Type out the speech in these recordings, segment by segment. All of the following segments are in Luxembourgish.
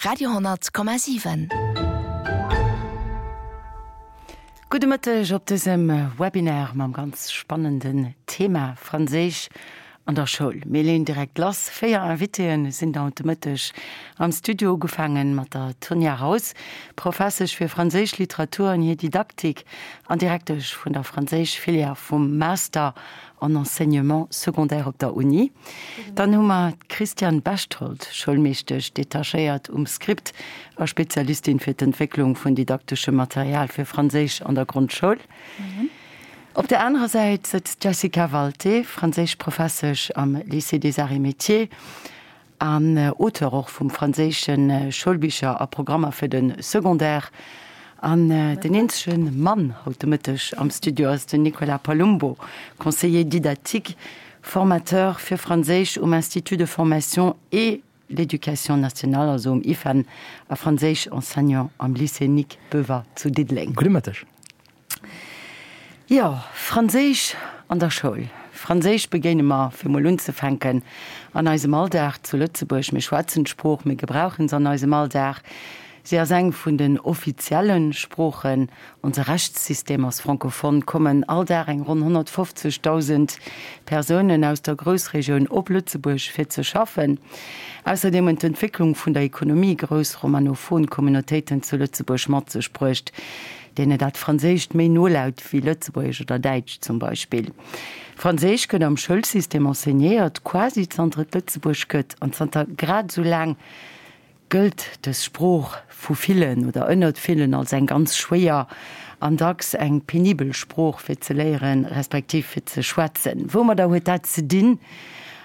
Radio,7. Gudde Mëtteg op dësem Webinar mam ganz spannenden Thema Franséisch an der Schoul. Mir leeën direkt lass. 4 Invitéen sinn haut de Mëtteg am Studio, ugefaangen mat der Tonia Raus, Professesch fir franséisch Literatur an hir Didaktik an Direktesch vun der Franséisch-Filière vum Master en Enseignement secondaire op der Uni. Dann hu mer d'Christiane Bechtold, Schoulmeeschtesch detachéiert um Script a Spezialistin fir d'Entwécklung vun didakteschem Material fir Franséisch an der Grondschoul. Op der anerer Säit sëtzt d'Jessica Walté, Franséischprofessesch am Lycée des Arts et Métiers An Auteur och vum franséische Schoulbicher a Programmer fir de Secondaire. An den eenzege Mann haut de Mëtteg am Studio ass den Nicolas Palumbo, Conseiller didactique, Formateur fir Franséisch um Institut de formation et l'éducation nationale, also um IFEN, a Franséisch-Enseignant am Lycée Nic Boever zu Diddeleng. Gudde Mëtteg. Jo, Franséisch an der Schoul. Franséisch begéine mer, fir mol unzefänken, an eisem Alldag zu Lëtzebuerg. Mir schwätzen d'Sprooch, mir gebrauchen se an eisem Alldag. Si ass eng vun den offizielle Sproochen. Onse Rechtssystem ass francophone. Kommen all Dag eng ronn 150.000 Persounen aus der Groussregioun op Lëtzebuerg fir ze schaffen. Ausserdeem hunn d'Entwécklung vun der Ekonomie grouss romanophon Communautéiten zu Lëtzebuerg mat sech bruecht. deene dat Franséischt méi no laut wéi Lëtzebuergesch oder Däitsch zum Beispill. Franséisch gëtt am Schoulsystem enseignéiert, quasi zanter et Lëtzebuerg gëtt, an zanter grad esou laang gëllt dës Sprooch vu villen oder ënnert villen als eng ganz schwéier an dacks eng penibel Sprooch fir ze léieren, respektiv fir ze schwätzen. Woumadder huet dat ze dinn?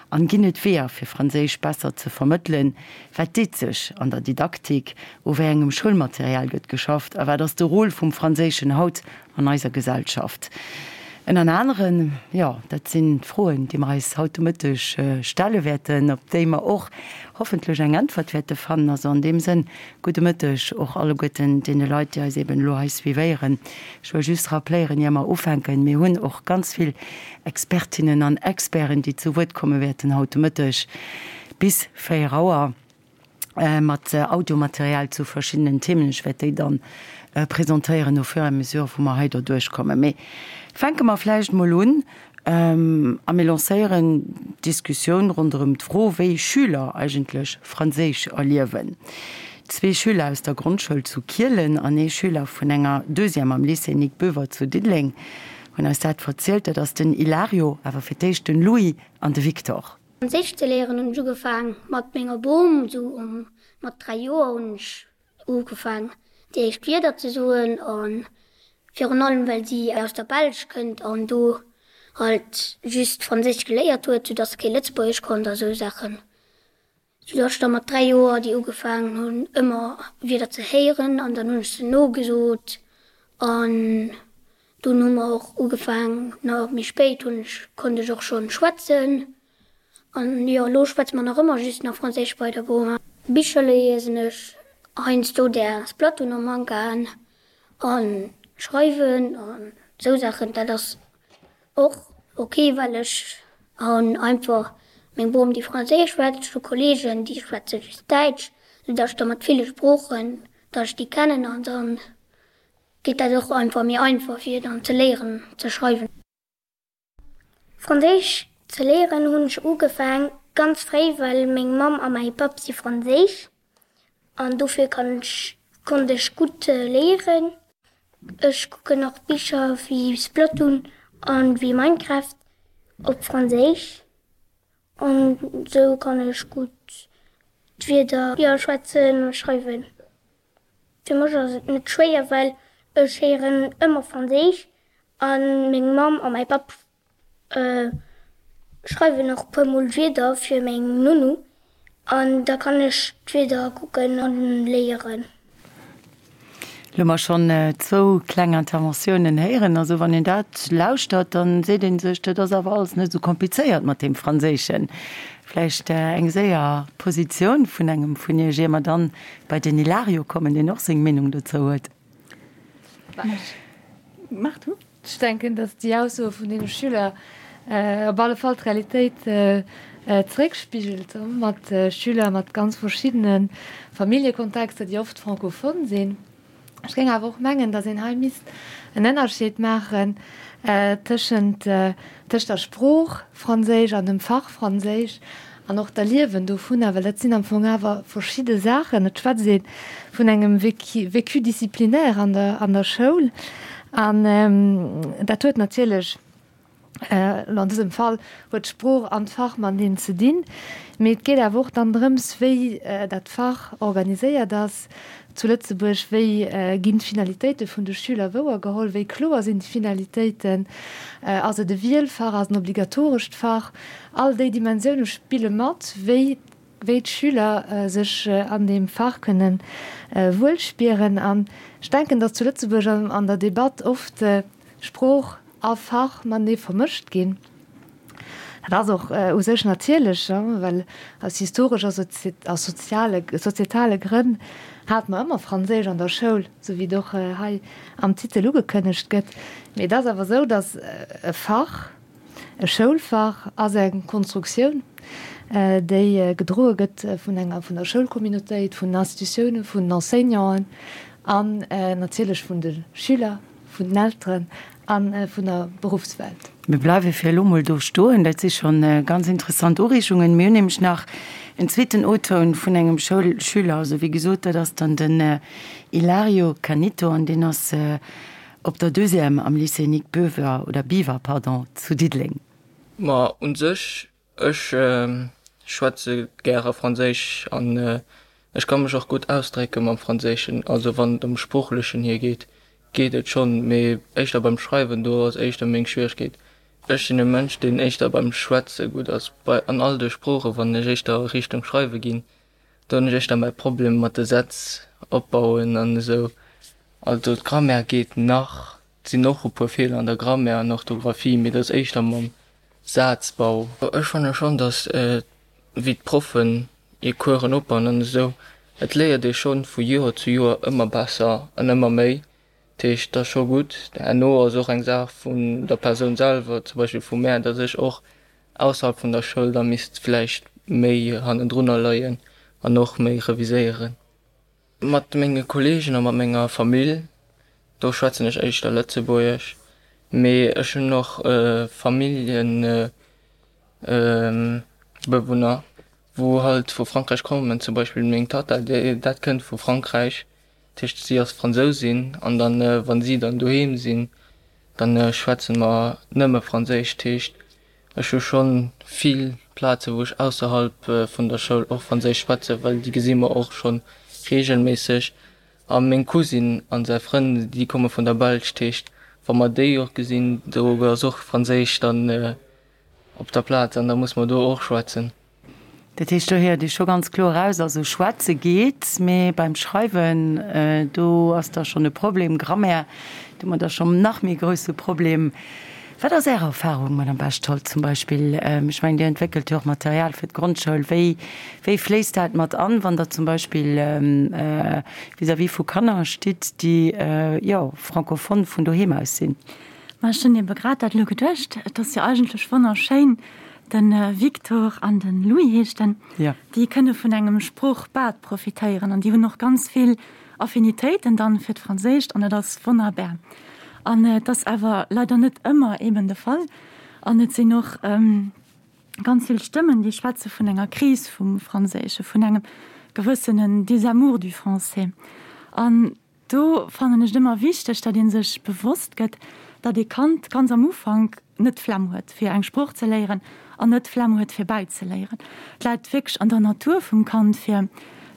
An ginn et Weeër fir Franséisch besser ze vermëttelen? Wat deet sech an der Didaktik? U wéi engem Schoulmaterial gëtt geschafft? A wat ass de Rôle vum Franséischen haut an eiser Gesellschaft? Ënner aneren, jo, dat sinn d'Froen, déi mer eis haut de Mëtteg stelle wäerten, op déi mer och hoffentlech eng Äntwert wäerte fannen. Also an deem Sënn, gudde Mëtteg och alleguerten deene Leit, déi eis eben elo hei suivéieren. Ech wëll just rappléieren, ier mer ufänken, Mir hunn och ganz vill Expertinnen an Experten, déi zu Wuert komme wäerten haut de Mëtteg bis 4 Auer mat Audiomaterial zu verschiddenen Themen. Ech wäert déi dann presentéieren au fur et à mesure, wou mer hei derduerch kommen. Mee fänke mer vläicht mol un a mir lancéieren d'Diskussioun ronderëm d'Fro, wéi Schüler eigentlech Franséisch erliewen. Zwee Schüler aus der Grondschoul zu Kielen an ee Schüler vun enger Deuxième am Lycée Nic Boever zu Diddeleng hunn eis dat verzielt. Dat ass den Ilario, awer fir d'éischt den Louis an de Victor. Franséisch ze léieren hunn ech ugefaang mat menger Bom, sou um mat 3 Joer hunn ech ugefaang déi éischt Wierder ze soen an virun allem well si aus der Belsch kënnt an do halt just Franséisch geléiert huet, sou dass se kee Lëtzebuergesch konnt a sou Saachen. Sou dass ech da mat 3 Joer déi ugefaangen hunn ëmmer Wierder ze héieren an dann hunn ech se nogesot an dunn hu mer och ugefaang, na méi spéit hunn ech, konnt ech och schonn schwätzen an jo elo schwätze mer nach ëmmer just nach Franséisch bei der Boma. Bicher liesen ech heiansdo där Splatoon am Mangaen an schreiwen an sou Saachen, dat ass Och ok, well ech hunn einfach meng Bom déi Franséisch schwätzt, ech hu Kollegen déi schwätze just Däitsch, sou datt ech da mat ville Sproochen, datt ech déi kennen an dann geet dat och einfach méi einfach fir dann ze léieren ze schreiwen. Franséisch ze léieren hunn ech ugefaang ganz fréi, well meng Mamm a mäi Papp si franséisch an dofir kann ech konnt ech gutt léieren. Ech kucken och Bicher wéi Splatoon an wéi Minecraft op Franséisch an sou kann ech gutt d'Wierder jo schwätzen a schreiwen. Fir mech ass et net schwéier well ech héieren ëmmer Franséisch an meng Mamm a mäi Papp Schreiwen och puer mol Wierder fir meng Nounou an da kann ech d'Wierder kucken an léieren. Lo hu mer schonn zwou kleng Interventiounen héieren. Also wann een dat lauschtert, dann seet ee sech, dat ass awer alles net esou komplizéiert mat deem Franséischen. Vläicht eng séier Positioun vun engem vun Iech, ier mer dann bei den Ilario kommen, deen och seng Meenung dozou huet. Mach du. Ech denken, datt déi Aussoe vun deene Schüler op alle Fall d'Realitéit. zeréckspigelt, mat Schüler mat ganz verschiddene Familljekontexter, déi oft francophone sinn. Ech géing awer och mengen, datt een hei misst en Ënnerscheed maachen tëschent tëscht der Sprooch Franséisch an dem Fach Franséisch an och d'Erliewen dovunner, well dat sinn am Fong awer verschidde Saachen. Et schwätzt ee vun engem Vécu disciplinaire an der an der Schoul an dat huet natierlech, Elo an dësem Fall huet d'Sprooch an d'Fach mateneen ze dinn, mee et geet awer och dann drëms, wéi dat Fach organiséiert ass zu Lëtzebuerg, wéi ginn d'Finalitéite vun de Schüler wouergeholl, wéi kloer sinn déi Finalitéiten, ass et e Wielfach, ass et en obligatorescht Fach? All déi Dimensioune spille mat, wéi wéi d'Schüler sech an deem Fach kënne wuel spieren. An ech denken, datt zu Lëtzebuerg an der Debatt oft Sprooch a Fach matenee vermëscht ginn. Dat ass och u sech natierlech, well aus historesch a soziale, sozietale Grënn hate mer ëmmer Franséisch an der Schoul, sou wéi et och hei am Titel ugekënnegt gëtt. Mee et ass awer esou, datt e Fach, e Schoulfach ass eng Konstruktioun, déi gedroe gëtt vun enger, vun der Schoulcommunautéit, vun den Institutiounen, vun den Enseignanten an natierlech vun de Schüler. Vun den Elteren a vun der Beruffswelt. Mir bleiwe fir elo mol do stoen. Dat si scho ganz interessant Ureegungen. Mir hunn nämlech nach en zweeten O-Toun vun engem Schoulschüler. Also wéi gesot, dat ass dann den Ilario Canito an deen ass op der Deuxième am Lycée Nic Boever oder Biwer, pardon, zu Diddeleng. Ma un sech Ech schwätze gäre Franséisch an ech ka mech och gutt ausdrécke mam Franséischen. Also wann et ëm Sproochlechen hier geet, geet et schonn, mee éischter beim Schreiwen, do ass éischter meng Schwieregkeet. Ech sinn e Mënsch, deen éischter beim Schwätze gutt ass, bei an all de Sproochen. Wann ech éischter Richtung Schreiwe ginn, do hunn ech éischter mäi Problem mat de Sätz opbauen an esou. Also d'Grammaire geet nach, et sinn och e puer Feeler an der Grammaire an Orthografie, mee dat ass éischter mam Sazbau. Ech fanne schonn, datt wéi d'Proffen hir Coursen opbauen an esou, et léiert ee schonn vu Joer zu Joer ëmmer besser an ëmmer méi. Dat heescht, et ass scho gutt. Herno ass och eng Saach vun der Persoun selwer, zum Beispill vu mär, datt ech och ausserhalb vun der Schoul da misst vläicht méi hannendrunner leien an och méi reviséieren. Mat menge Kolleegen a mat menger Famill, do schwätzen ech éischter Lëtzebuergesch, mee ech hunn och Familljebewunner, wou halt vu Frankräich kommen, zum Beispill meng Tatta, déi dat kënnt vu Frankräich, dat heescht si ass Fransousin an dann, wa si dann doheem sinn, dann schwätze mer nëmme Franséisch, dat heescht Ech hu schonn vill Plaze wou ech ausserhalb vun der Schoul och Franséisch schwätzen, well déi gesi mer och schonn reegelméisseg. A meng Cousine an säi Frënn, déi komme vun der Belsch, dat heescht wa mer déi och gesinn, do ass och Franséisch dann op der Plaz an da muss mer do och schwätzen. Dat heescht, do héiert ee scho ganz kloer eraus, also schwätze geet, mee beim Schreiwen, do ass da schonn e Problem. Grammaire, do hu mer da schonn nach méi grousse Problem. Wat ass Är Erfahrung, Madame Bechtold, zum Beispill? Ech mengen, Dir entwéckelt jo och Material fir d'Grondschoul. Wéi, wéi fléisst dat mat an, wann Der zum Beispill vis-à-vis vu Kanner stitt, déi, jo, francophone vun doheem aus sinn? Ma ech hunn ebe grad dat elo geduecht. Et ass jo eigentlech wonnerschéin, De Victor an de Louis heescht en, déi kënne vun engem Sproochbad profitéieren an déi hunn och ganz vill Affinitéiten dann fir d'Franséischt an dat ass wonnerbär. An et ass awer leider net ëmmer eben de Fall an et sinn och ganz vill Stëmmen, déi schwätze vun enger Kris vum Franséische, vun engem gewëssenen Désamour du français. An Do fannen ech et ëmmer wichteg, datt ee sech bewosst gëtt, datt ee Kand ganz am Ufank net d'Flemm huet, fir eng Sprooch ze léieren an net d'Flemm huet, fir bäizeléieren. Et läit wierklech an der Natur vum Kand, fir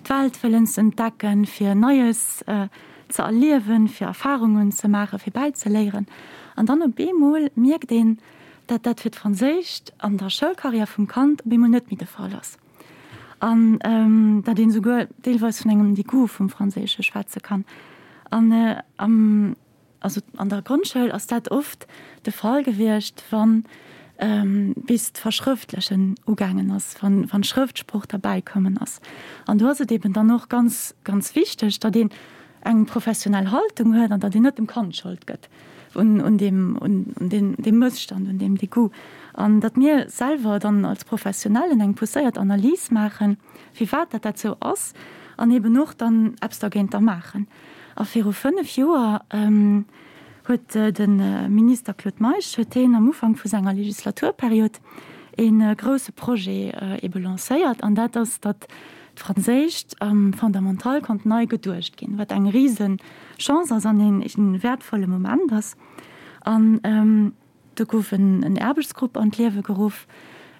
d'Welt wëllen ze entdecken, fir Neies ze erliewen, fir Erfarungen ze maachen, fir bäizeléieren. An dann op eemol mierkt een, datt dat fir d'Franséischt an der Schoulcarrière vum Kand op eemol net méi de Fall ass. An datt een esouguer deelweis vun engem Degoût vum Franséische schwätze kann. An am, also an der Grondschoul ass dat oft de Fall gewiescht, wann bis d'Verschrëftlechen ugaangen ass, wann wann d'Schrëftsprooch derbäi kommen ass. An do ass et eben dann och ganz, ganz wichteg, datt een eng professionell Haltung huet an datt een net dem Kand d'Schold gëtt. un, un deem, un, un deem, deem Mësstand, un deem Degoût. An datt mir selwer dann als Professionellen eng pousséiert Analys maachen, firwat dat dat sou ass, an eben och dann eppes dergéinter maachen. A viru 5 Joer huet de Minister Claude Meisch, huet heen am Ufank vu senger Legislaturperiod ee grouse Projet ebe lancéiert, an dat ass, datt d'Franséischt am Fondamental konnt nei geduecht ginn, wat eng rise Chance ass an ee wäertvolle Moment ass. An do gouf en Aarbechtsgrupp an d'Liewe geruff,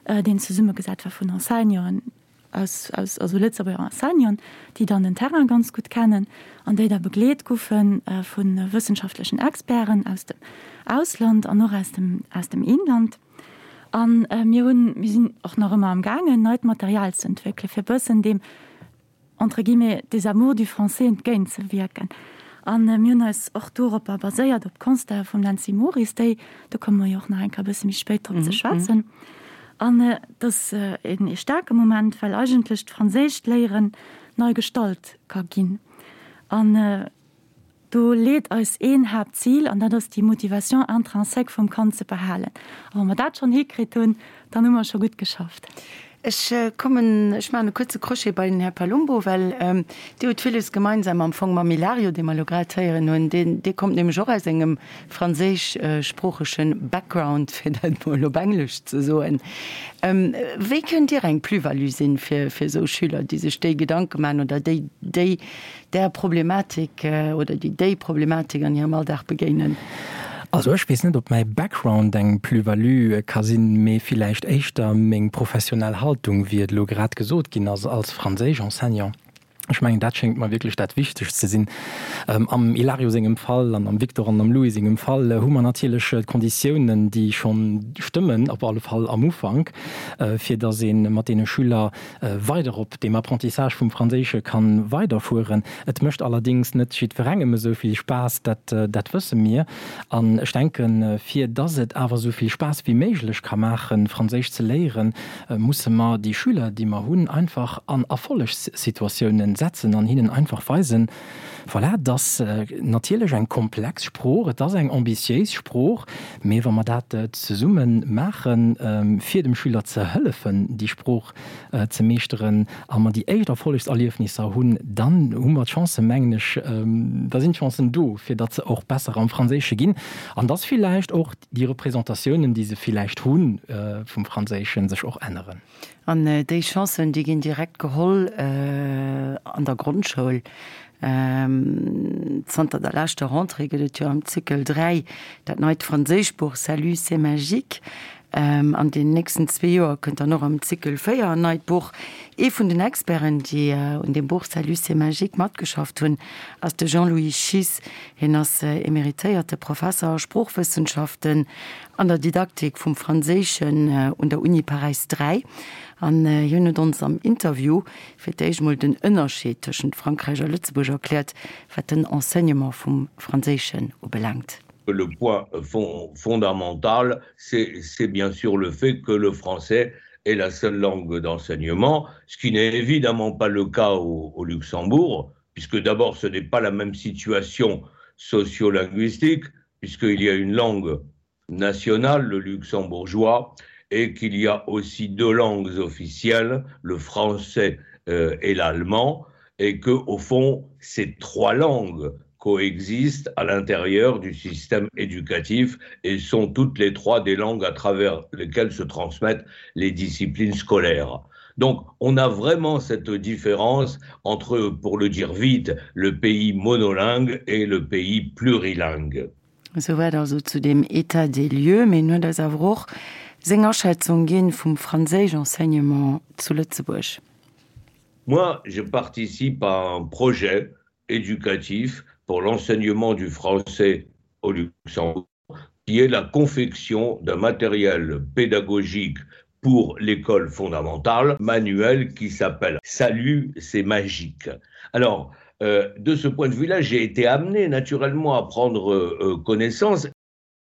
deen zesummegesat war vun Enseignanten aus, aus, also Lëtzebuerger Enseignanten, déi dann den Terrain ganz gutt kennen an déi da begleet goufe vu wëssenschaftlechen Experten aus dem Ausland an och aus dem, aus dem Inland. A mir hunn, mir sinn och nach ëmmer am gaangen, neit Material ze entwéckelen, fir e bëssen deem, entre guillemets, désamour du français entgéintzewierken. A mir hunn eis och doropper baséiert, op d'Constatë vum Nancy Moris, déi, do komme mer jo och nach eng Kéier e bësse méi spéit drop ze schwätzen. An et ass ee staarke Moment, well eigentlech d'franséischt Léieren nei gestalt ka ginn. An Do leet eis een Haaptzil, an dat ass déi Motivation intrinsèque vum Kand ze behalen. A wa mer dat schonn hikritt hunn, dann hu mer scho gutt geschafft. Ech kommen, ech maachen e kuerze Crochet bei den Här Palumbo, well Dir hutt villes gemeinsam am Fong mam Ilario, dee mer elo grad héieren hunn. Deen, dee kommt nämlech och aus engem franséischsproochege Background, fir dat emol op Englesch ze soen. Wéi kënnt Dir eng Plus-value sinn fir, fir esou Schüler, déi sech déi Gedanke maachen oder déi, déi där Problematik oder déi déi Problematik an hirem Alldag begéinen? Also ech weess net, ob mäi Background eng Plus-value ka sinn, mee villäicht éischter meng professionell Haltung, wéi et elo grad gesot ginn ass, als Franséisch-Enseignant. Ech mengen, dat schéngt mer wierklech dat Wichtegst ze sinn. Am Ilario sengem Fall an am Victor an am Louis sengem Fall hu mer natierlech d'Konditiounen, déi schonn stëmmen, op alle Fall am Ufank, fir datt ee mat deene Schüler weider op deem Apprentissage vum Franséische kann weiderfueren. Et mécht allerdings net jiddwerengem esou vill Spaass, dat, dat wësse mir. An ech denken, fir dass et awer esou vill Spaass wéi méiglech ka maachen, Franséisch ze léieren, musse mer déi Schüler, déi mer hunn, einfach an Erfollegssituatiounen setzen an hinnen einfach weisen, Voilà, et ass natierlech eng komplex Sprooch, et ass eng ambitiéis Sprooch, mee wa mer dat zesumme maachen, fir dem Schüler ze hëllefen, déi Sprooch ze meeschteren, a mer déi éischt Erfollegserliefnisser hunn, dann hu mer d'Chancen, mengen ech, da sinn d'Chancen do, fir datt se och besser am Franséische ginn an datt villäicht och déi Representatiounen, déi se villäicht hu vum Franséischen, sech och änneren. An déi Chancen, déi ginn direkt geholl an der Grondschoul. Zanter der leschter Rentrée gëtt et jo am Cycle 3 dat neit Franséischbuch Salut, c'est magique. An den nächsten zwee Joer kënnt dann och am Cycle 4 en neit Buch. Ee vun den Experten, déi un deem Buch Salut, c'est magique matgeschafft hunn, ass de Jean-Louis Schiess. Hien ass emeritéierte Professer a Sproochwëssenschaften an der Didaktik vum Franséischen un der Uni Paräis 3. An hien huet ons am Interview fir d'éischt mol den Ënnerscheed tëschent Frankräich a Lëtzebuerg erkläert, wat den Enseignement vum Franséischen ubelaangt. Le point fondamental, c'est bien sûr le fait que le français est la seule langue d'enseignement, ce qui n'est évidemment pas le cas au, au Luxembourg, puisque d'abord ce n'est pas la même situation sociolinguistique, puisqu'il y a une langue nationale, le luxembourgeois, et qu'il y a aussi deux langues officielles, le français euh, et l'allemand, et que au fond ces trois langues coexistent à l'intérieur du système éducatif et sont toutes les trois des langues à travers lesquelles se transmettent les disciplines scolaires. Donc on a vraiment cette différence entre, pour le dire vite, le pays monolingue et le pays plurilingue. Souwäit also zu deem État des lieux. Mee en huet eis awer och seng Aschätzung ginn vum Franséisch-Enseignement zu Lëtzebuerg. Moi, je participe à un projet éducatif pour l'enseignement du français au Luxembourg qui est la confection d'un matériel pédagogique pour l'école fondamentale, manuel qui s'appelle Salut, c'est magique. Alors, euh, de ce point de vue-là, j'ai été amené naturellement à prendre euh, connaissance.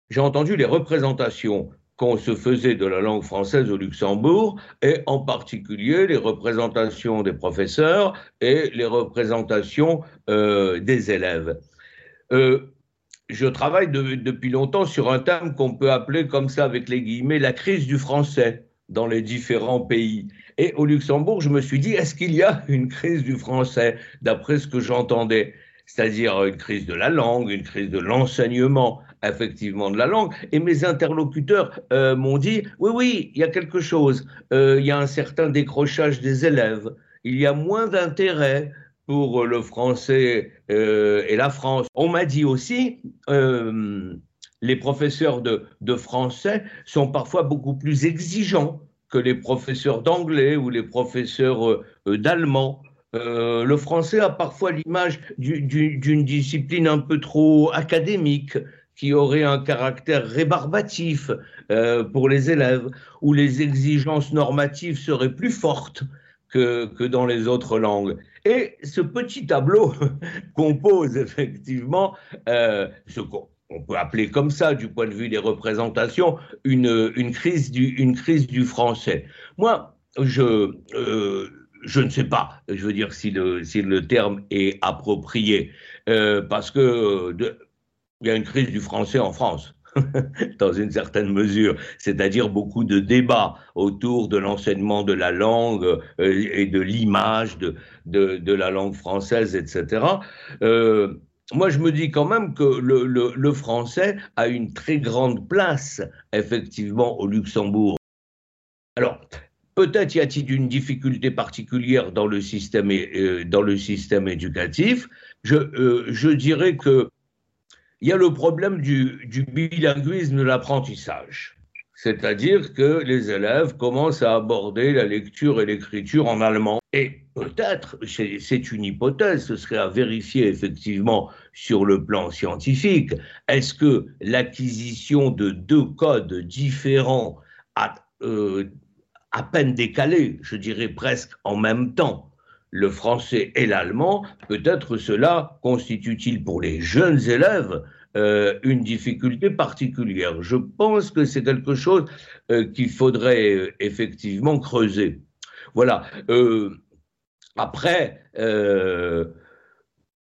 J'ai entendu les représentations qu'on se faisait de la langue française au Luxembourg, et en particulier les représentations des professeurs et les représentations euh, des élèves. Euh, Je travaille de, depuis longtemps sur un thème qu'on peut appeler comme ça avec les guillemets la crise du français dans les différents pays. Et au Luxembourg, je me suis dit est-ce qu'il y a une crise du français d'après ce que j'entendais c'est-à-dire une crise de la langue, une crise de l'enseignement effectivement de la langue. Et mes interlocuteurs euh, m'ont dit oui oui, il y a quelque chose, euh, il y a un certain décrochage des élèves, il y a moins d'intérêt pour le français euh, et la France. On m'a dit aussi euh, les professeurs de, de français sont parfois beaucoup plus exigeants que les professeurs d'anglais ou les professeurs euh, d'allemand. Euh, le français a parfois l'image d'une discipline un peu trop académique qui aurait un caractère rébarbatif euh, pour les élèves, où les exigences normatives seraient plus fortes que, que dans les autres langues. Et ce petit tableau compose effectivement euh, ce qu'on peut appeler comme ça du point de vue des représentations une, une, crise, du, une crise du français. Moi, je, euh, je ne sais pas, je veux dire si le, si le terme est approprié, euh, parce que de, il y a une crise du français en France. dans une certaine mesure, c'est-à-dire beaucoup de débats autour de l'enseignement de la langue euh, et de l'image de, de, de la langue française, etc. Euh, moi, je me dis quand même que le, le, le français a une très grande place, effectivement, au Luxembourg. Alors, peut-être y a-t-il une difficulté particulière dans le système, euh, dans le système éducatif. Je, euh, je dirais que il y a le problème du, du bilinguisme de l'apprentissage. C'est-à-dire que les élèves commencent à aborder la lecture et l'écriture en allemand. Et peut-être, c'est une hypothèse, ce serait à vérifier effectivement sur le plan scientifique, est-ce que l'acquisition de deux codes différents à, euh, à peine décalés, je dirais presque en même temps, le français et l'allemand, peut-être cela constitue-t-il pour les jeunes élèves euh, une difficulté particulière. Je pense que c'est quelque chose euh, qu'il faudrait euh, effectivement creuser. Voilà. Euh, après, euh,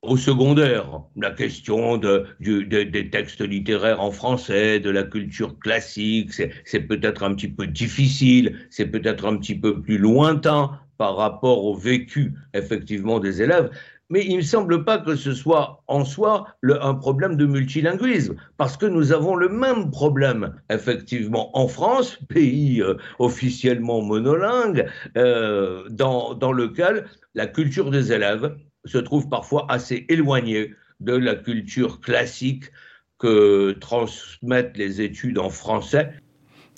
au secondaire, la question de, du, de, des textes littéraires en français, de la culture classique, c'est peut-être un petit peu difficile, c'est peut-être un petit peu plus lointain par rapport au vécu effectivement des élèves. Mais il ne me semble pas que ce soit en soi le, un problème de multilinguisme, parce que nous avons le même problème effectivement en France, pays euh, officiellement monolingue, euh, dans, dans lequel la culture des élèves se trouve parfois assez éloignée de la culture classique que transmettent les études en français.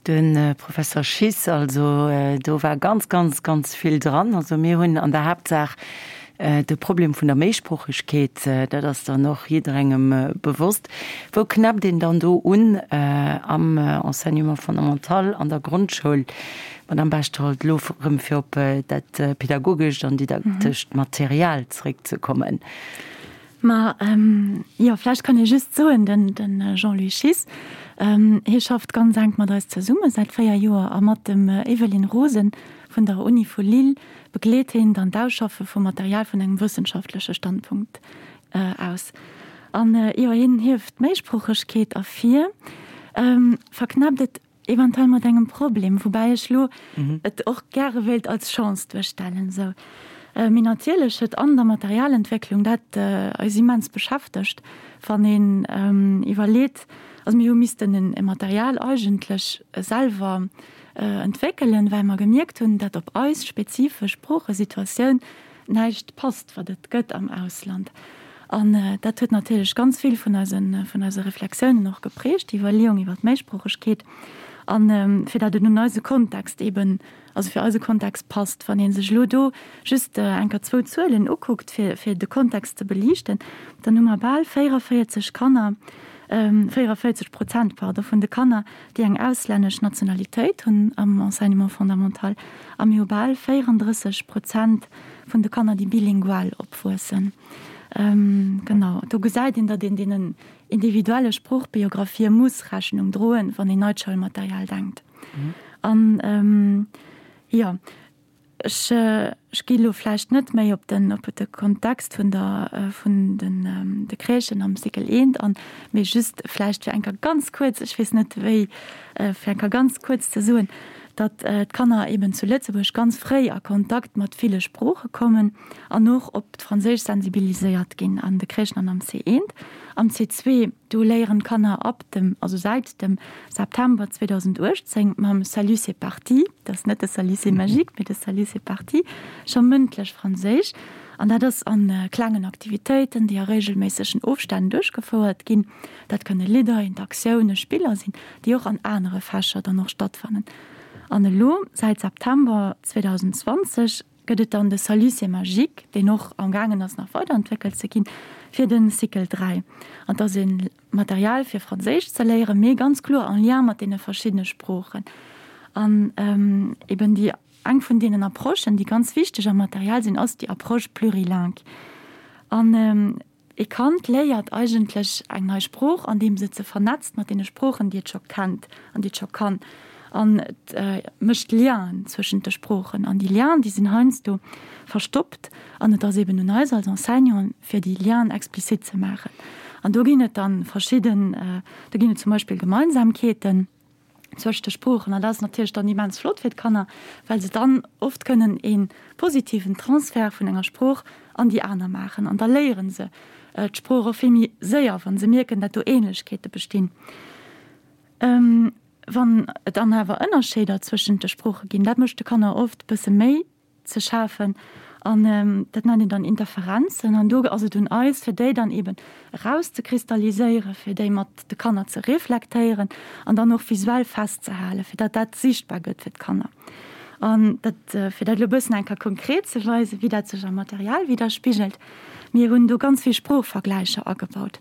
De Professor Schiss, Also do war ganz, ganz, ganz vill dran. Also mir hunn an der Haaptsaach de Problem vun der Méisproochegkeet, dat ass dann och jidderengem bewosst. Wou knäppt een dann do un am Enseignement fondamental, an der Grondschoul? Madamm Bechtold, elo erëm fir op dat pedagogescht an didaktescht Material zréckzekommen. Ma jo, vläicht kann ee just soen, den Jean-Louis Schiss, hie schafft ganz enk mat eis zesumme säit 4 Joer a mat dem Evelyne Rosen vun der Uni vu Lille begleet hien dann d'Ausschaffe vum Material vun engem wëssenschaftleche Standpunkt aus. An jo, hien hieft d'Méisproochegkeet ervir, verknäppt et Eventuell mat engem Problem, woubäi ech lo et och gäre wéilt als Chance duerstellen. Esou. Mee natierlech huet an der Materialentwécklung dat eis immens beschäftegt, wann een iwwerleet, also mir hu missten e Material eigentlech selwer entwéckelen, well mer gemierkt hunn, dat op eis spezifesch Sproochesituatioun näischt passt, wat et gëtt am Ausland. An dat huet natierlech ganz vill vun eise, vun eise Reflexiounen och geprägt, déi Iwwerleeung iwwer d'Méisproochegkeet. An fir dat et un eise Kontext eeben, also fir eise Kontext passt. Wann ee sech elo do just enker zwou Zuelen ukuckt, fir, fir de Kontext ze beliichten, dann hu mer bal 44 Kanner, 44 Prozent, pardon, vun de Kanner, déi eng auslännesch Nationalitéit hunn am Enseignement fondamental, a mir hu bal 34 Prozent vun de Kanner, déi bilingual opwuessen. Genau, do gesäit een, datt een deenen individuelle Sproochbiographië muss Rechnung droen, wann een neit Schoulmaterial denkt. An, jo. Ech, ech gi elo vläicht net méi op den, op de Kontext vun der, vun den, de Crèchen am Cycle eent an, mee just vläicht fir eng Kéier ganz kuerz, ech weess net wéi, fir eng Kéier ganz kuerz ze soen, datt d'Kanner eben zu Lëtzebuerg ganz fréi a Kontakt mat ville Sprooche kommen an och op d'Franséisch sensibiliséiert ginn an de Crèchen an am C1. Am C2 Do léieren d'Kanner ab dem, also säit dem September 2018 mam Salut c'est parti, dat ass net de Salut c'est magique, mee de Salut c'est parti, scho mëndlech Franséisch. An dat ass a klengen Aktivitéiten, déi a reegelméissegen Ofstänn duerchgefouert ginn. Dat kënne Lidder, Interaktiounen, Spiller sinn, déi och an anere Fächer dann och stattfannen. An elo, säit September 2020, gëtt et dann de Salut c'est magique, deen och am gaangen ass nach weiderentwéckelt ze ginn, fir de Cycle 3. An et ass e Material fir Franséisch ze léieren, mee ganz kloer en lien mat deene verschiddene Sproochen. An eben déi eng vun deenen Approchen, déi ganz wichteg am Material sinn, ass déi Approche plurilingue. An E Kand léiert eigentlech eng nei Sprooch, andeems et se vernetzt mat deene Sproochen, déi et scho kennt an déi et scho kann. An et mécht Lienen zwëschent de Sproochen. An déi Lienen, déi sinn heiansdo verstoppt. An et ass eben un eis als Enseignanten, fir déi Lienen explizit ze maachen. An do ginn et dann verschidden, do ginn et zum Beispill Gemeinsamkeeten. Zwëscht de Sproochen. An dat ass natierlech dann immens flott fir d'Kanner, well se dann oft kënnen ee positiven Transfert vun enger Sprooch an déi aner maachen. An da léiere se d'Sprooch och vill méi séier, wa se mierken, dat do Ähnlechkeete bestinn. Wann et dann awer Ënnerscheeder zwëschent de Sprooche ginn, dat mécht de Kanner oft e bësse méi ze schafen an dat nennt een dann Interferenzen an do ass et un eis fir déi dann eben erauszekristalliséieren, fir déi mat de Kanner ze reflektéieren an dann och visuell festzehalen, fir datt dat sichtbar gëtt fir d'Kanner. An dat, fir dat elo e bëssen eng Kéier konkret ze weisen, wéi dat sech am Material widderspigelt, mir hunn do ganz vill Sproochvergläicher agebaut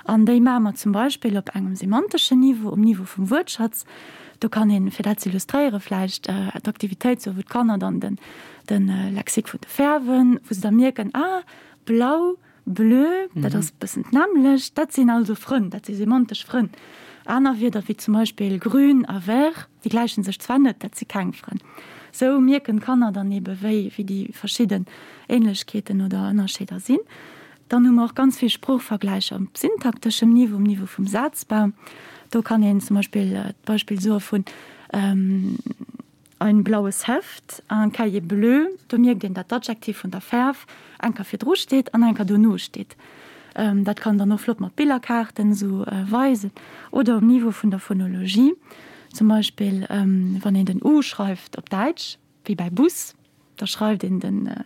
an déi maache mer zum Beispill op engem semanteschen Niveau, um Niveau vum Wuertschatz, Do kann een, fir dat ze illustréieren, vläicht d'Aktivitéit soen, wou d'Kanner dann den, de Lexique vun de Fäerwen, wou se da mierken, ah, blau, bleu, dat ass e bëssen d'nämmlecht, dat sinn also Frënn, dat si semantesch Frënn. Aner Wierder wéi zum Beispill grün a vert, déi gläiche sech zwar net, dat si keng Frënn. Sou mierken d'Kanner dann ebe wéi, wéi déi verschidden Ähnlechkeeten oder Ënnerscheeder sinn. Dann hu mer och ganz vill Sproochvergläicher op syntakteschem Niveau, um Niveau vum Sazbau. Do kann een zum Beispill d'Beispill soe vun ein blaues Heft, un cahier bleu. Do mierkt een, dat d'Adjektiv vun der Fäerf eng Kéier virdru steet an eng Kéier dono steet. Dat kann dann och flott mat Billerkaarten esou weisen. Oder um Niveau vun der Phonologie, zum Beispill wann een den u schreift op Däitsch, wéi bäi Bus, da schreift een den,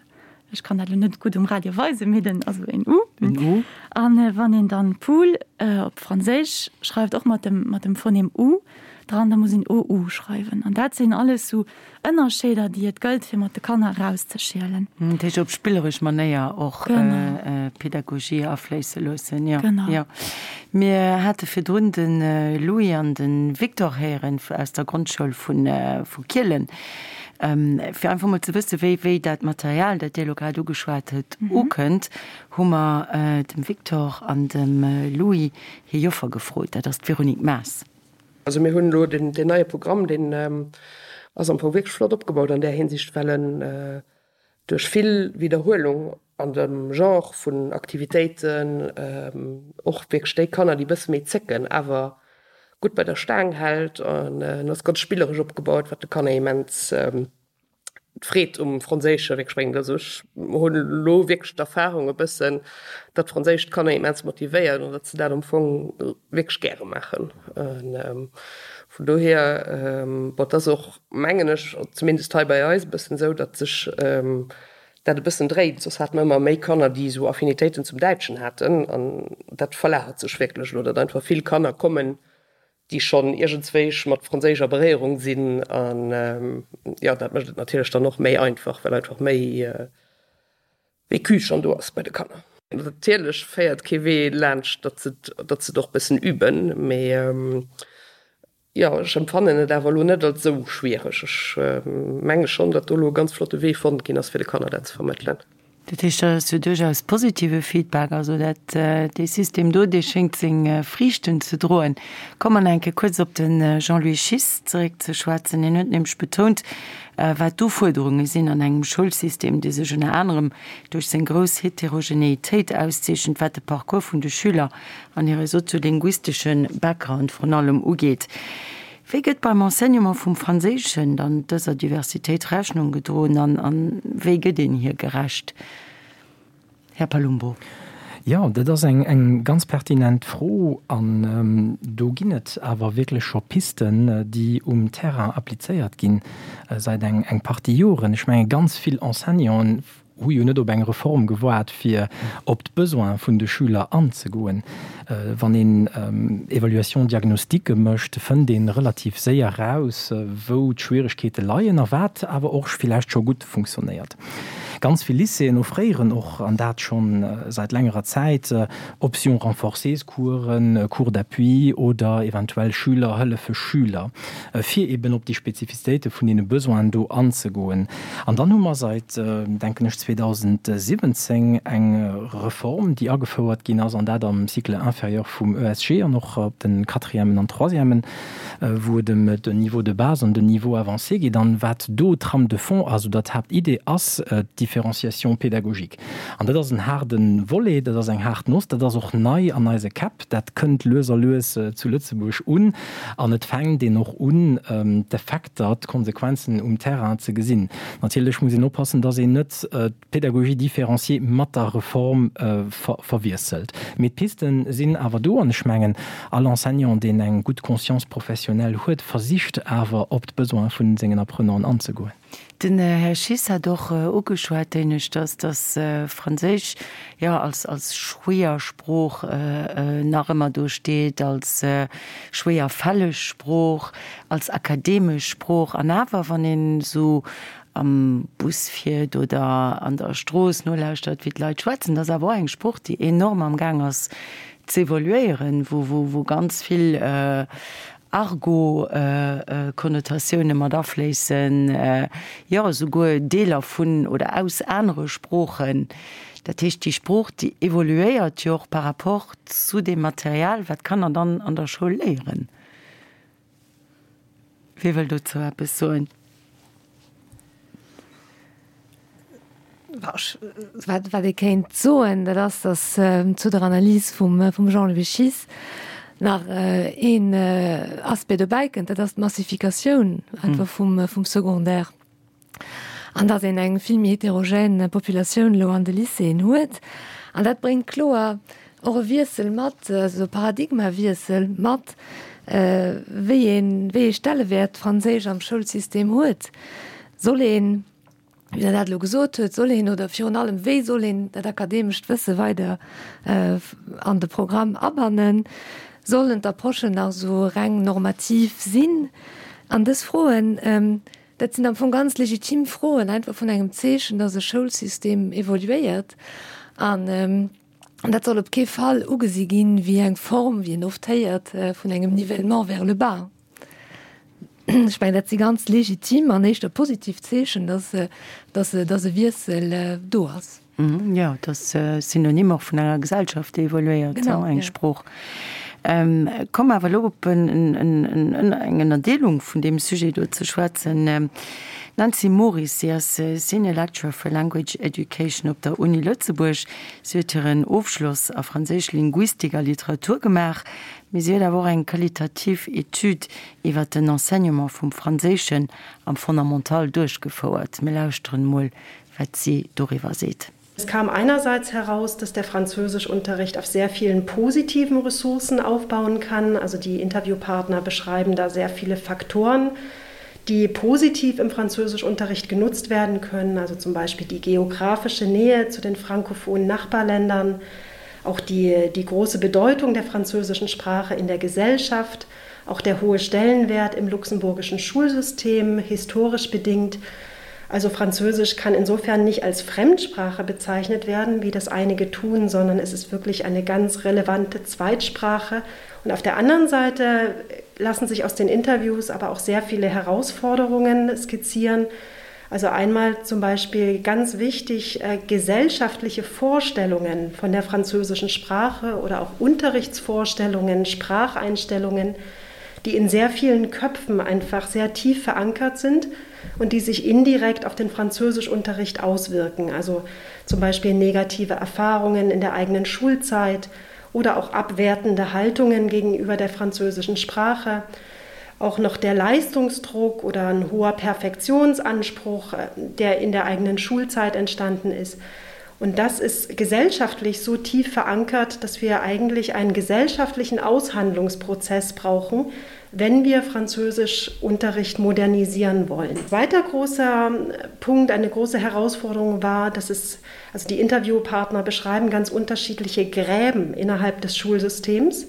ech kann dat elo net gutt um Radio weisen, mee den, also een U. En U. An wann een dann Pool op Franséisch schreift, och mat dem, mat dem Phonem U dran, da muss een OU schreiwen. An dat sinn alles sou Ënnerscheeder, déi et gëllt, fir mat de Kanner erauszeschielen. Dat heescht op spilleresch Manéier och Pedagogie afléisse loossen. Jo, jo. Mir hate virdrun de Louis an de Victor héieren aus der Grondschoul vu Kielen. Fir einfach mol ze wëssen, wéi, wéi dat Material, dat Dir elo grad ugeschwat hutt, ukënnt, hu mer dem Victor an dem Louis hir Joffer gefrot. Dat ass d'Véronique Maas. Also mir hunn elo deen, deen neie Programm, deen ass am Fong wierklech flott opgebaut an där Hinsicht, well en duerch vill Widderhuelung an dem Genre vun Aktivitéiten och wierklech déi Kanner, déi e bësse méi zécken, awer gutt bei der Staang hält. An en ass ganz spilleresch opgebaut, wat de Kanner immens d'Freed um Franséische wierklech bréngt. Also ech hunn elo wierklech d'Erfarung e bëssen, datt Franséisch d'Kanner immens motivéiert an datt se dat am Fong wierklech gäre maachen. Vun dohier, bon, et ass och, mengen ech, zumindest hei bei eis e bëssen esou, datt sech dat e bëssen dréit. Soss hate mer ëmmer méi Kanner, déi esou Affinitéiten zum Däitschen haten an dat verlagert sech wierklech elo, datt einfach vill Kanner kommen, déi schonn iergendswéich mat Franséisch a Beréierung sinn an jo, dat mécht et natierlech dann och méi einfach, well einfach méi Vécu schonn do ass bei de Kanner. Natierlech féiert kee Wee laanscht, datt se datt se et och bëssen üben, mee jo, ech empfannen et awer elo net als esou schwiereg. Ech menge schonn, datt do elo e ganz flotte Wee fonnt ginn ass, fir de Kanner dat ze vermëttelen. Dat heescht, dat ass jo duerchaus positive Feedback. Also dat, dee System do, dee schéngt seng Friichten ze droen. Komme mer nach eng Kéier kuerz op de Jean-Louis Schiss zeréck ze schwätzen. Hien huet nämlech betount, wat d'Ufuerderunge sinn an engem Schoulsystem, dee sech ënner anerem duerch seng grouss Heterogenéitéit auszeechent, wat de Parcours vun de Schüler an hire soziolinguistesche Background vrun allem ugeet. Wéi gëtt beim Enseignement vum Franséischen dann dëser Diversitéit Rechnung gedroen an a wéi gëtt een hir gerecht, Här Palumbo? Jo, dat ass eng ganz pertinent Fro an do ginn et awer wierklech scho Pisten, déi um Terrain applizéiert ginn säit eng Partie Joren. Ech menge ganz vill Enseignanten hu jo net op eng Reform gewaart, fir op d'Besoine vun de Schüler anzegoen. Wann een Évaluation-diagnostiquë mécht, fënnt ee relativ séier raus, wou d'Schwieregkeete leien a wat awer och villäicht scho gutt funktionéiert. Ganz vill Lycéeën offréieren och, an dat scho säit längerer Zäit, Option renforcées-Coursen, Cours d'appui oder eventuell Schüler hëllefe Schüler, fir eben op déi Spezifizitéite vun deene Besoinen do anzegoen. An dann hu mer seit, denken ech, 2017 eng Reform, déi agefouert ginn ass, an dat am Cycle inférieur vum ESG an och op de Quatrièmen an Troisièmen, wou et ëm den Niveau de base an den Niveau avancé geet. An wat do d'Trame de fond ass oder d'Haaptidee ass d'Differenciation pédagogique. An dat ass en haarde Volet, dat ass eng haart Noss, dat ass och nei an eise Käpp, dat kënnt lues a lues zu Lëtzebuerg un an et fänkt een och un, d'Effekter, d'Konsequenzen um Terrain ze gesinn. Natierlech muss een oppassen, dass een net d'Pédagogie différenciée mat der Reform verwiesselt. Mee d'Piste sinn awer do an ech mengen, all Enseignant, deen eng gutt Conscience professionnelle huet, versicht awer op d'Besoine vu sengen Apprenanten anzegoen. Den Här Schiss hat och ugeschwat, éineschters, dass Franséisch, jo, als, als schwéier Sprooch nach ëmmer do steet, als schwéierfälleg Sprooch, als akademesch Sprooch. An awer, wann een esou am Bus fiert oder an der Strooss nolauschtert, wéi d'Leit schwätzen, dat ass awer och eng Sprooch, déi enorm am Gaang ass z'evoluéieren, wou, wou, wou ganz vill Argot-Konnotatioune mat afléissen, jo esouguer Deeler vun oder aus anere Sproochen. Dat heescht, déi Sprooch, déi evoluéiert jo och par rapport zu deem Material, wat d'Kanner dann an der Schoul léieren. Wie wëll dozou eppes soen? Wat ee kéint soen, dat ass, datt zu der Analys vum Jean-Louis Schiess nach een Aspect dobäi kënnt, dat ass d'Massifikatioun einfach vum Secondaire an datt een eng vill méi heterogène Populatioun elo an de Lycéeën huet. An dat bréngt kloer och e Wiessel mat, also e Paradigmawiessel mat, wéi een, wéi ee Stellewäert d'Franséisch am Schoulsystem huet. Soll een, wéi Der dat elo gesot huet, soll een oder virun allem wéi soll een dat akademescht Wësse weider an de Programm abannen? Sollen d'Approchen nach esou reng normativ sinn? An dës Froen, dat sinn am Fong ganz legitim Froen, einfach vun engem Zeechen, dass e Schoulsystem evoluéiert. An dat soll op kee Fall ugesi ginn wéi eng Form, wéi een oft héiert, vun engem Nivellement vers le bas. Ech mengen, dat si ganz legitim an éischter positiv Zeechen, dass, dass, dass e Wiessel do ass. Jo, et ass Synonym och vun enger Gesellschaft, déi evoluéiert, eng Sprooch. Komm awer elo op eng Ënnerdeelung vun deem Sujet do ze schwätzen. D'Nancy Moris, si ass Senior Lecturer for Language Education op der Uni Lëtzebuerg. Si huet hiren Ofschloss a Franséisch Linguistik a Literatur gemaach. Mee si huet awer och eng qualitativ Etüd iwwer den Enseignement vum Franséischen am Fondamental duerchgefouert. Mir lauschteren emol, wat si doriwwer seet. Es kam einerseits heraus, dass der Französischunterricht auf sehr vielen positiven Ressourcen aufbauen kann. Also die Interviewpartner beschreiben da sehr viele Faktoren, die positiv im Französischunterricht genutzt werden können, also zum Beispiel die geografische Nähe zu den frankophonen Nachbarländern, auch die, die große Bedeutung der französischen Sprache in der Gesellschaft, auch der hohe Stellenwert im luxemburgischen Schulsystem historisch bedingt. Also Französisch kann insofern nicht als Fremdsprache bezeichnet werden, wie das einige tun, sondern es ist wirklich eine ganz relevante Zweitsprache. Und auf der anderen Seite lassen sich aus den Interviews aber auch sehr viele Herausforderungen skizzieren. Also einmal zum Beispiel ganz wichtig äh, gesellschaftliche Vorstellungen von der französischen Sprache oder auch Unterrichtsvorstellungen, Spracheinstellungen, die in sehr vielen Köpfen einfach sehr tief verankert sind und die sich indirekt auf den Französischunterricht auswirken. Also zum Beispiel negative Erfahrungen in der eigenen Schulzeit oder auch abwertende Haltungen gegenüber der französischen Sprache, auch noch der Leistungsdruck oder ein hoher Perfektionsanspruch, äh, der in der eigenen Schulzeit entstanden ist. Und das ist gesellschaftlich so tief verankert, dass wir eigentlich einen gesellschaftlichen Aushandlungsprozess brauchen, wenn wir Französischunterricht modernisieren wollen. Weiter großer äh, Punkt, eine große Herausforderung war, dass es also die Interviewpartner beschreiben ganz unterschiedliche Gräben innerhalb des Schulsystems.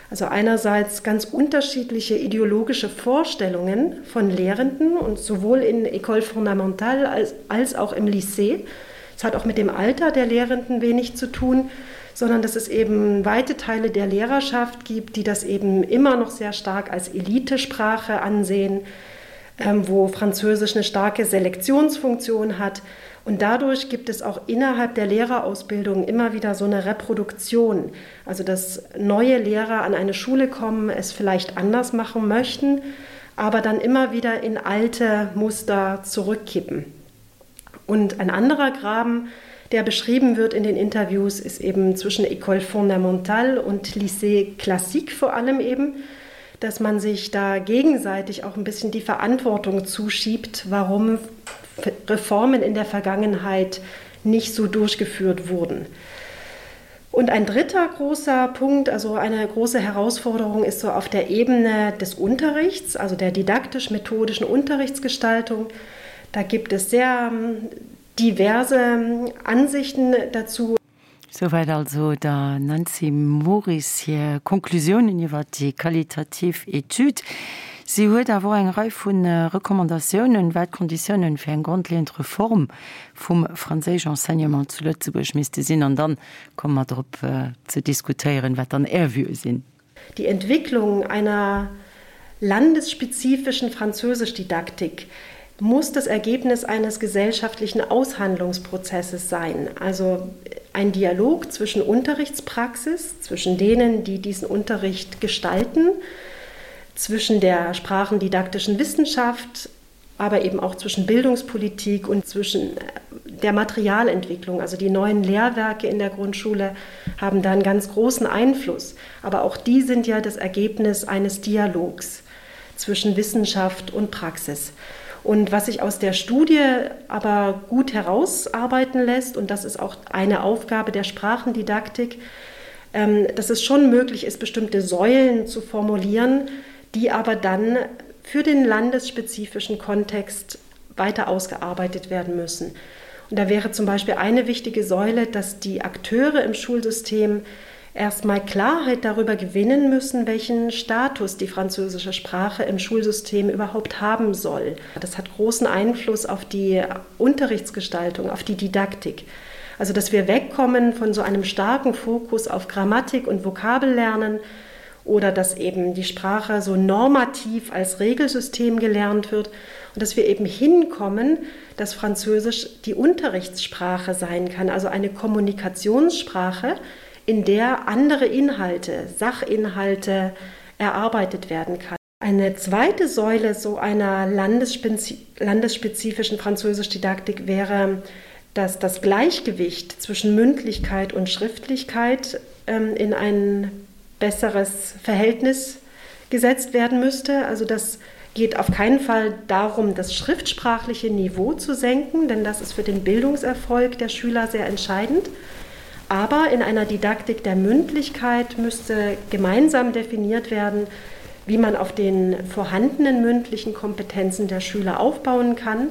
Also einerseits ganz unterschiedliche ideologische Vorstellungen von Lehrenden und sowohl in École fondamentale als, als auch im Lycée. Es hat auch mit dem Alter der Lehrenden wenig zu tun, sondern dass es eben weite Teile der Lehrerschaft gibt, die das eben immer noch sehr stark als Elitesprache ansehen, ähm, wo Französisch eine starke Selektionsfunktion hat. Und dadurch gibt es auch innerhalb der Lehrerausbildung immer wieder so eine Reproduktion, also dass neue Lehrer an eine Schule kommen, es vielleicht anders machen möchten, aber dann immer wieder in alte Muster zurückkippen. Und ein anderer Graben, der beschrieben wird in den Interviews, ist eben zwischen École fondamentale und Lycée classique vor allem eben, dass man sich da gegenseitig auch ein bisschen die Verantwortung zuschiebt, warum Reformen in der Vergangenheit nicht so durchgeführt wurden. Und ein dritter großer Punkt, also eine große Herausforderung ist so auf der Ebene des Unterrichts, also der didaktisch-methodischen Unterrichtsgestaltung. Da gibt es sehr ähm, diverse ähm, Ansichten dazu. Souwäit also der Nancy Moris hir Konklusiounen iwwer déi qualitativ Etüd. Si huet awer och eng Rei vu Recommandatiounen, wat d'Konditiounen fir eng grondleeënd Reform vum franséisch Enseignement zu Lëtzebuerg misste sinn. An dann komme mer drop ze diskutéieren, wat dann Är Vuë sinn. Die Entwicklung einer landesspezifischen Französischdidaktik muss das Ergebnis eines gesellschaftlichen Aushandlungsprozesses sein, also ein Dialog zwischen Unterrichtspraxis, zwischen denen, die diesen Unterricht gestalten, zwischen der sprachendidaktischen Wissenschaft, aber eben auch zwischen Bildungspolitik und zwischen äh, der Materialentwicklung. Also die neuen Lehrwerke in der Grundschule haben da einen ganz großen Einfluss. Aber auch die sind ja das Ergebnis eines Dialogs zwischen Wissenschaft und Praxis. Und was sich aus der Studie aber gut herausarbeiten lässt, und das ist auch eine Aufgabe der Sprachendidaktik, ähm, dass es schon möglich ist, bestimmte Säulen zu formulieren, die aber dann für den landesspezifischen Kontext weiter ausgearbeitet werden müssen. Und da wäre zum Beispiel eine wichtige Säule, dass die Akteure im Schulsystem erstmal Klarheit darüber gewinnen müssen, welchen Status die französische Sprache im Schulsystem überhaupt haben soll. Das hat großen Einfluss auf die Unterrichtsgestaltung, auf die Didaktik. Also dass wir wegkommen von so einem starken Fokus auf Grammatik und Vokabellernen oder dass eben die Sprache so normativ als Regelsystem gelernt wird und dass wir eben hinkommen, dass Französisch die Unterrichtssprache sein kann, also eine Kommunikationssprache, in der andere Inhalte, Sachinhalte erarbeitet werden kann. Eine zweite Säule so einer landesspezifischen Französischdidaktik wäre, dass das Gleichgewicht zwischen Mündlichkeit und Schriftlichkeit ähm, in ein besseres Verhältnis gesetzt werden müsste. Also das geht auf keinen Fall darum, das schriftsprachliche Niveau zu senken, denn das ist für den Bildungserfolg der Schüler sehr entscheidend. Aber in einer Didaktik der Mündlichkeit müsste gemeinsam definiert werden, wie man auf den vorhandenen mündlichen Kompetenzen der Schüler aufbauen kann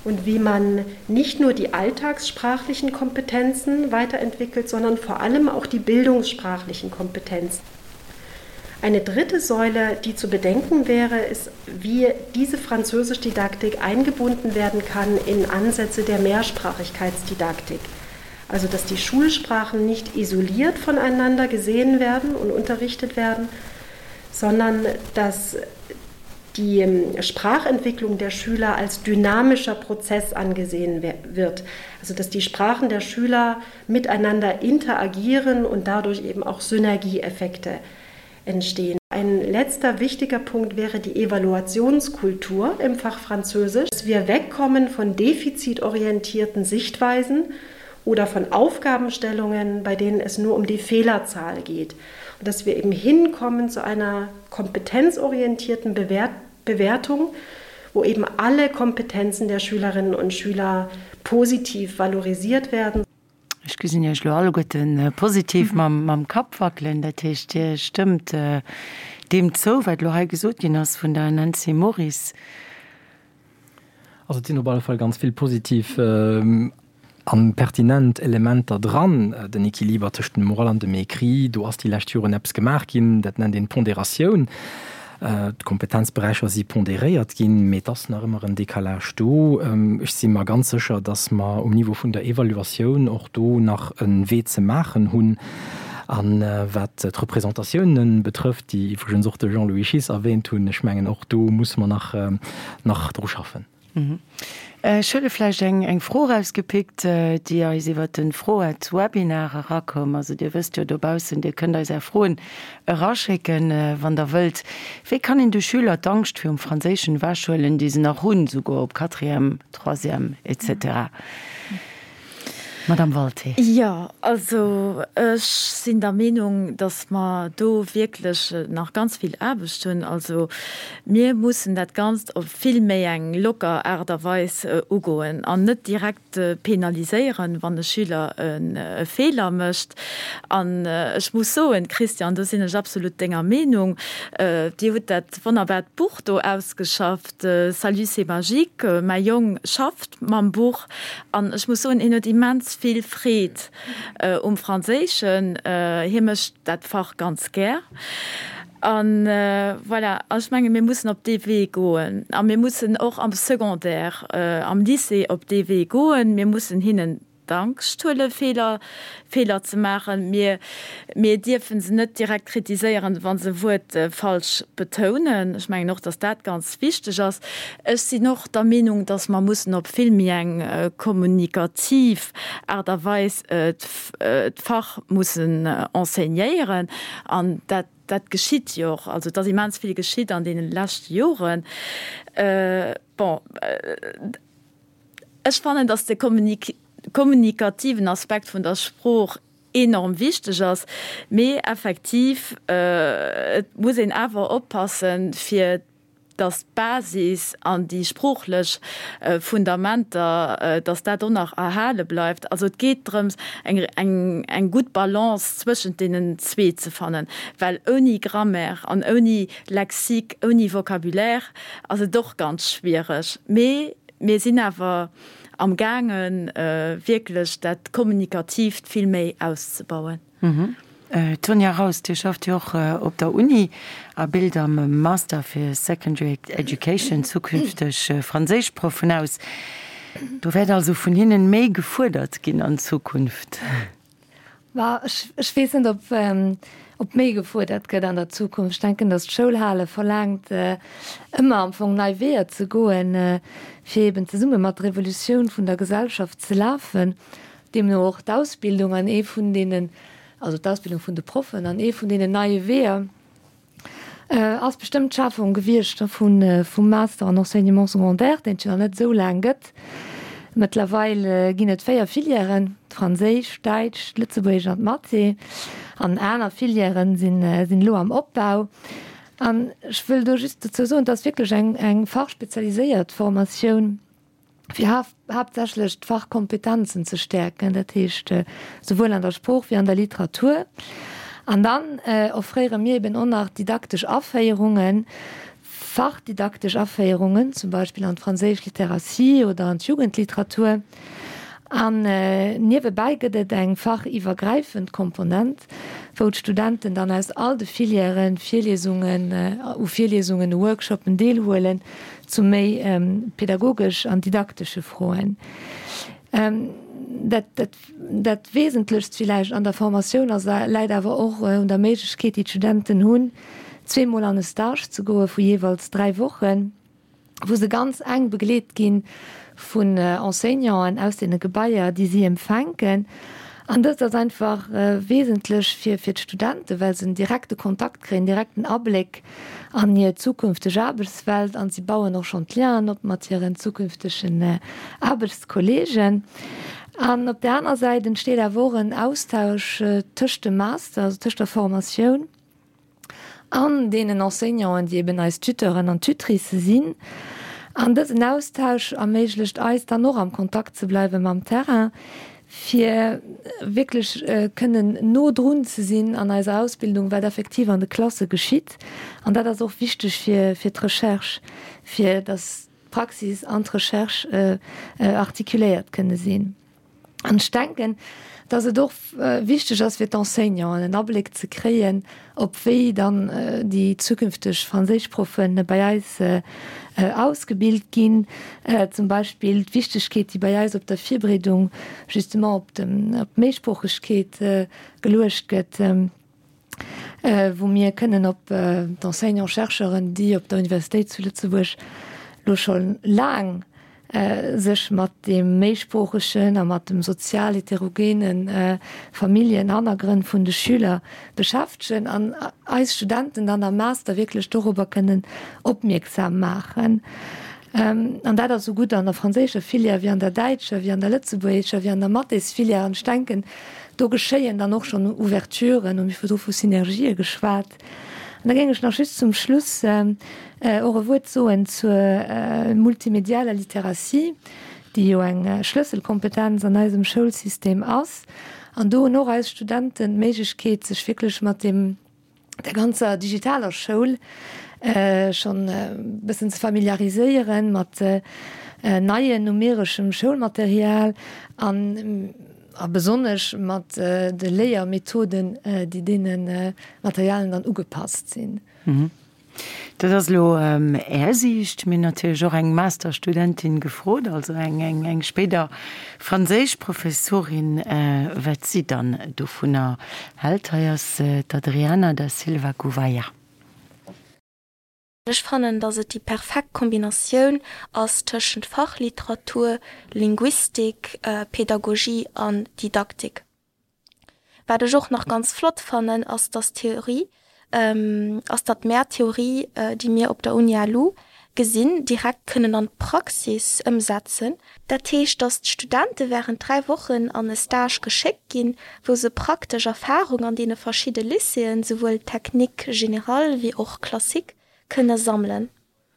und wie man nicht nur die alltagssprachlichen Kompetenzen weiterentwickelt, sondern vor allem auch die bildungssprachlichen Kompetenzen. Eine dritte Säule, die zu bedenken wäre, ist, wie diese Französischdidaktik eingebunden werden kann in Ansätze der Mehrsprachigkeitsdidaktik. Also dass die Schulsprachen nicht isoliert voneinander gesehen werden und unterrichtet werden, sondern dass die. die ähm, Sprachentwicklung der Schüler als dynamischer Prozess angesehen wird. Also dass die Sprachen der Schüler miteinander interagieren und dadurch eben auch Synergieeffekte entstehen. Ein letzter wichtiger Punkt wäre die Evaluationskultur im Fach Französisch, dass wir wegkommen von defizitorientierten Sichtweisen oder von Aufgabenstellungen, bei denen es nur um die Fehlerzahl geht. Und dass wir eben hinkommen zu einer kompetenzorientierten Bewert Bewertung, wo eben alle Kompetenzen der Schülerinnen und Schüler positiv valorisiert werden. Ech gesinn Iech elo alleguerten positiv mam Kapp wackelen. Dat heescht, Dir stëmmt deem zou, wat elo hei gesot ginn ass vun der Nancy Moris. Also et sinn op alle Fall ganz vill positiv a pertinent Elementer dran. Den Equiliber tëscht dem Oral an dem Écrit, do ass déi lescht Joren eppes gemaach ginn, dat nennt een Ponderatioun. D'Kompetenzberäicher si ponderéiert ginn, mee et ass nach ëmmer en Décalage do. Ech si mer ganz sécher, dass mer um Niveau vun der Evaluatioun och do nach e Wee ze maachen hunn. A wat d'Representatiounen betrëfft, déi iwwregens och de Jean-Louis Schiess erwähnt hunn, ech mengen, och do musse mer nach, nach dru schaffen. Ech huele vläicht eng Fro erausgepickt, déi eis iwwert de Froet-Webinar erakoum. Also Dir wësst jo dobaussen, Dir kënnt eis Är Froen eraschécken, wann Der wëllt. Wéi kann een de Schüler d'Angscht virum Franséischen ewechhuelen, déi se nach hunn, souguer op Quatrième, Troisième etc. Madame Walté. Jo, also ech sinn der Meenung, datt mer do wierklech nach ganz vill Aarbecht hunn. Also mir mussen dat Ganzt op vill méi eng locker Aart a Weis ugoen an net direkt penaliséieren, wann e Schüler e Feeler mécht. An ech muss soen, Christian, do sinn ech absolut denger Meenung, Dir hutt dat wonnerbart Buch do ausgeschafft, Salut, c'est magique. Mäi Jong schafft mam Buch An ech muss soen, hien huet immens vill Freed um Franséischen. Hie mécht dat Fach ganz gär. An voilà, ech menge mir mussen op dee Wee goen. A mir mussen och am Secondaire, am Lycée op dee Wee goen. Mir mussen hinnen d'Angscht huelen, Feeler, Feeler ze maachen. Mir, mir dierfe se net direkt kritiséieren, wa se e Wuert falsch betounen. Ech mengen och, datt dat ganz wichteg ass. Ech sinn och der Meenung, dass mer mussen op vill méi eng kommunikativ Aart a Weis d'Fach mussen enseignéieren. An dat, dat geschitt jo och. Also et ass immens vill geschitt an deene leschte Joren. Bon, ech fannen, dass de kommunikativen Aspekt vun der Sprooch enorm wichteg ass, mee effektiv, et muss een awer oppassen, fir dass d'Basis an déi sproochlech Fundamenter, dass dat och nach erhale bleift. Also et geet drëms, eng, eng, eng gutt Balance zwëschent deenen zwee ze fannen, well ouni Grammaire an ouni Lexique, ouni Vocabulaire ass et och ganz schwiereg. Mee mir sinn awer amgaangen, wierklech dat Kommunikatiivt vill méi auszebauen. D'Sonia Raus, Dir schafft jo och op der Uni a bilt am Master fir Secondary Education zukünfteg Franséischproffen aus. Do wäert also vun hinnen méi gefuerdert ginn an Zukunft? Ma ech weess net, ob méi gefuerdert gëtt an der Zukunft. Ech denken, datt d'Schoulhale verlaangt, ëmmer am Fong nei Weeër ze goen, fir eben zesumme mat der Evolutioun vun der Gesellschaft ze lafen. Deemno och d'Ausbildung an ee vun deenen, also d'Ausbildung vun de Proffen an ee vun deenen neie Weeër ass bestëmmt d'Schafung gewiescht vun vum Master en Enseignement secondaire, deen et jo nach net esou laang gëtt. Mëttlerweil ginn et 4 Filièren, d'Franséisch, d'Däitsch, d'Lëtzebuergesch an d'Mathé. An aner Filièren sinn sinn elo am Opbau. An ech wëll do just dozou soen, et ass wierklech eng eng fachspezialiséiert Formatioun, fir haaptsächlech d'Fachkompetenzen ze stäerken, dat heescht souwuel an der Sprooch wéi an der Literatur. An dann offréiere mir eben och nach didaktesch Aféierungen, fachdidaktesch Aféierungen, zum Beispill an d'franséisch Littératie oder an d'Jugendliteratur. An niewebäi gëtt et eng fachiwwergräifend Komponent, wou d'Studenten dann aus all de Filièren Virliesungen, u Virliesungen, u Workshoppen deelhuelen, zu méi pädagogesch an didaktesche Froen. Dat, dat, dat Wesentlechst villäicht an der Formatioun ass, läit awer och un der Méiglechkeet, déi d'Studenten hunn, zweemol an e Stage ze goe vu jeeweils 3 Wochen, wou se ganz enk begleet gi vun Enseignanten aus deene Gebaier, déi si empfänken. An dëst ass einfach wesentlech fir fir d'Studenten, well se en direkte Kontakt kréien, direkten Abléck an hir zukünfteg Aarbechtswelt an si bauen och schonn d'Lienen op mat hiren zukünftegen Aarbechtskolleegen. An op där aner Säit entsteet awer och en Austausch tëscht dem Master, also tëscht der Formatioun an deenen Enseignanten, déi eben eis Tuteuren an Tutricë sinn. An dësen Austausch erméiglecht eis dann och am Kontakt ze bleiwe mam Terrain, fir wierklech kënnen no drun ze sinn an eiser Ausbildung, wat effektiv an de Klasse geschitt. An dat ass och wichteg fir fir d'Recherche, fir datt d'Praxis an d'Recherche artikuléiert kënne sinn. An ech denken, dass et och wichteg ass fir d'Enseignanten, en Abléck ze kréien, op wéi dann déi zukünfteg Franséischproffe bei eis ausgebilt ginn. Zum Beispill d'Wichtegkeet, déi bei eis op der Virbereedung justement op d'Méisproochegkeet geluecht gëtt. wou mir kënnen op d'Enseignants-chercheuren, déi op der Universitéit zu Lëtzebuerg lo scho laang sech mat deem méisproochegen a mat dem sozial heterogene Familljenhannergrënn vun de Schüler beschäftegen an eis Studenten dann am Master wierklech dorobber kënnen opmierksam maachen. An dat ass esou gutt an der franséischer Filière wéi an der däitscher, wéi an der lëtzebuergescher, wéi an der Mathésfilière. An ech denken, do geschéien dann och schonn Ouverturen, hu mir virdru vu Synergië geschwat. An da géing ech nach just zum Schluss och e Wuert soen zur multimedialer Literatie, déi jo eng Schlësselkompetenz an eisem Schoulsystem ass. An do hunn och eis Studenten d'Méiglechkeet, sech wierklech mat deem, der ganzer digitaler Schoul schonn e bëssen ze familiariséieren mat neien numereschem Schoulmaterial an a besonnesch mat de Léiermethoden, déi deene Materialien dann ugepasst sinn. Dat ass elo Är Siicht. Mir hunn natierlech och eng Masterstudentin gefrot, also eng spéider Franséischprofessorin, wat si dann dovunner hält. Hei ass d'Adriana da Silva Gouveia. Ech fannen, dass et déi perfekt Kombinatioun ass tëschent Fachliteratur, Linguistik, Pedagogie an Didaktik. Wat ech och nach ganz flott fannen, ass dass d'Theorie, ass datt mär d'Theorie, déi mir op der Uni LU gesinn, direkt kënnen an d'Praxis ëmsetzen. Dat heescht, datt d'Studente während 3 Wochen an e Stage geschéckt ginn, wou se praktesch Erfahrung an deene verschidde Lycéeën, souwuel Technique générale wéi och Classique, kënne sammelen.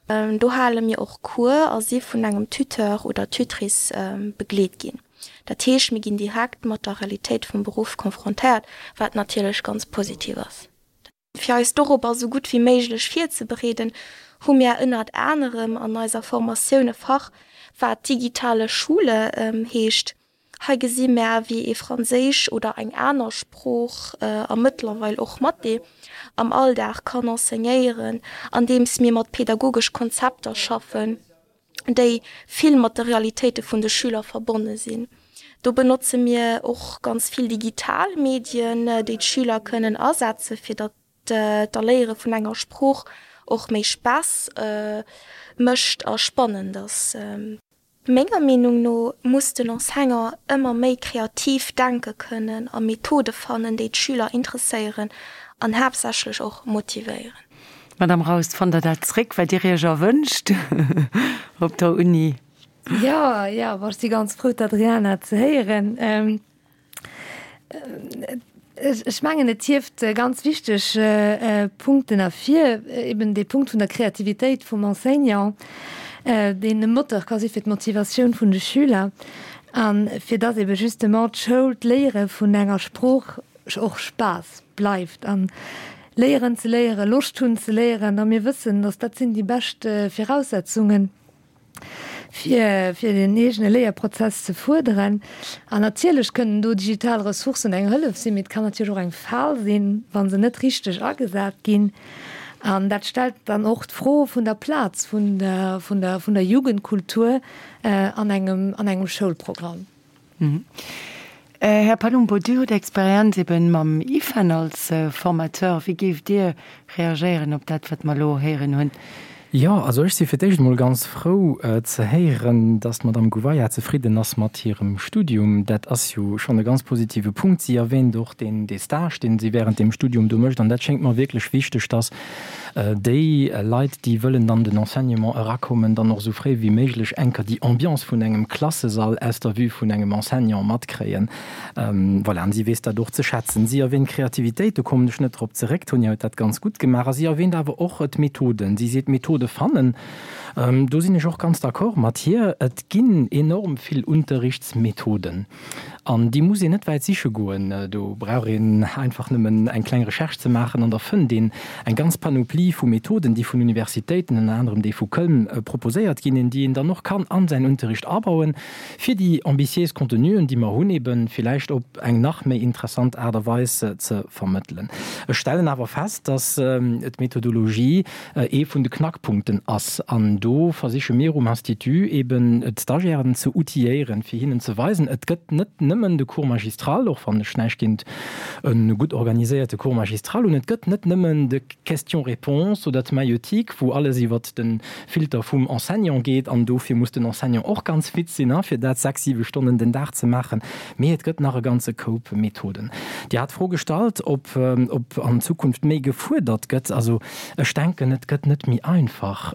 Do hale mir och Cours a si vun engem Tuteur oder Tutrice begleet ginn. Dat heescht, mir ginn direkt mat der Realitéit vum Beruff konfrontéiert, wat natierlech ganz positiv ass. Fir eis dorobber esou gutt wéi méiglech virzebereeden, hu mir ënnert anerem an eiser Formatioun e Fach, wat Digitale Schule heescht. Hei gesi mär, wéi ee Franséisch oder eng aner Sprooch, a mëttlerweil och Mathé, am Alldag kann enseignéieren, andeems mir mat pedagogesch Konzepter schaffen, déi vill mat de Realitéite vun de Schüler verbonne sinn. Do benotze mir och ganz vill digital Medien, déi d'Schüler kënnen asetze fir datt d'Erléiere vun enger Sprooch och méi Spaass mécht a spannend ass. Menger Meenung no muss den Enseignant ëmmer méi kreativ denke kënnen a Methode fannen, déi d'Schüler interesséieren an haaptsächlech och motivéieren. Madame Raus, fannt Der dat zréck, wat Dir Iech erwënscht op der Uni? Jo, jo, bon, ech si ganz frou, d'Adriana ze héieren. Ech mengen, et hieft ganz wichteg Punkten ervir, eben dee Punkt vun der Kreativitéit vum Enseignant, deen e Moteur ka si fir d'Motivatioun vun de Schüler a fir dass ebe justement d'Schoul, d'Léiere vun enger Sprooch och Spaass bleift an léieren ze léieren, Loscht hunn ze léieren. A mir wëssen, dass dat sinn déi bescht Viraussetzungen, fir fir den eegene Léierprozess ze fuerderen. An natierlech kënnen do digital Ressourcen eng Hëllef sinn, mee et kann natierlech och eng Fal sinn, wa se net richteg agesat ginn. An dat stellt dann och d'Fro vun der Plaz vun der vun der vun der Jugendkultur an engem an engem Schoulprogramm. Här Palumbo, Dir hutt Experienz eben mam IFEN als Formateur. Wéi géift Dir reagéieren op dat, wat mer elo héieren hunn? Jo, also ech si fir d'éischt emol ganz frou ze héieren, dass d'Madame Gouveia zefridden ass mat hirem Studium. Dat ass jo schonn e ganz positive Punkt. Si erwähnt och deen, dee Stage, deen si während deem Studium do mécht. An dat schéngt mer wierklech wichteg, dass déi Leit, déi wëllen an den Enseignement erakommen, dann och esou fréi wéi méiglech enker déi Ambiance vun engem Klassesall aus der Vue vun engem Enseignant matkréien. Voilà, an si weess dat och ze schätzen. Si erwähnt Kreativitéit, do kommen ech net drop zeréck, d'Tonia huet dat ganz gutt gemaach. A si erwähnt awer och d'Methoden. Si seet, Methode fannen. Do sinn ech och ganz d'accord mat hir. Et ginn enorm vill Unterrichtsmethoden an déi muss een net wäit siche goen. Do brauch een einfach nëmmen eng kleng Recherche ze maachen an da fënnt een eng ganz Panoplie vu Methoden, déi vun Universitéiten, ënner anerem déi vu Köln, proposéiert ginn, déi een dann och kann an säin Unterricht abauen. Fir déi ambitiéis Contenuen, déi mer hunn, ebe villäicht op eng nach méi interessant Aart a Weis ze vermëttelen. Ech stellen awer fest, dass d'Methodologie ee vun de Knackpunkten ass. An do versiche mir um Institut eben d'Stagiairen ze outilléieren, fir hinnen ze weisen, et gëtt net nëmmen de Cours magistral, och wann ech näischt géint e gutt organiséierte Cours magistral hunn, et gëtt net nëmmen de Questions-réponses oder d'Maïeutique, wou alles iwwert de Filter vum Enseignant geet, an dofir muss den Enseignant och ganz fit sinn, fir dat 6, 7 Stonnen den Dag ze maachen. Mee et gëtt nach e ganze Koup Methoden. Dir hat d'Fro gestallt, ob ob an Zukunft méi gefuerdert gëtt. Also ech denken, et gëtt net méi einfach,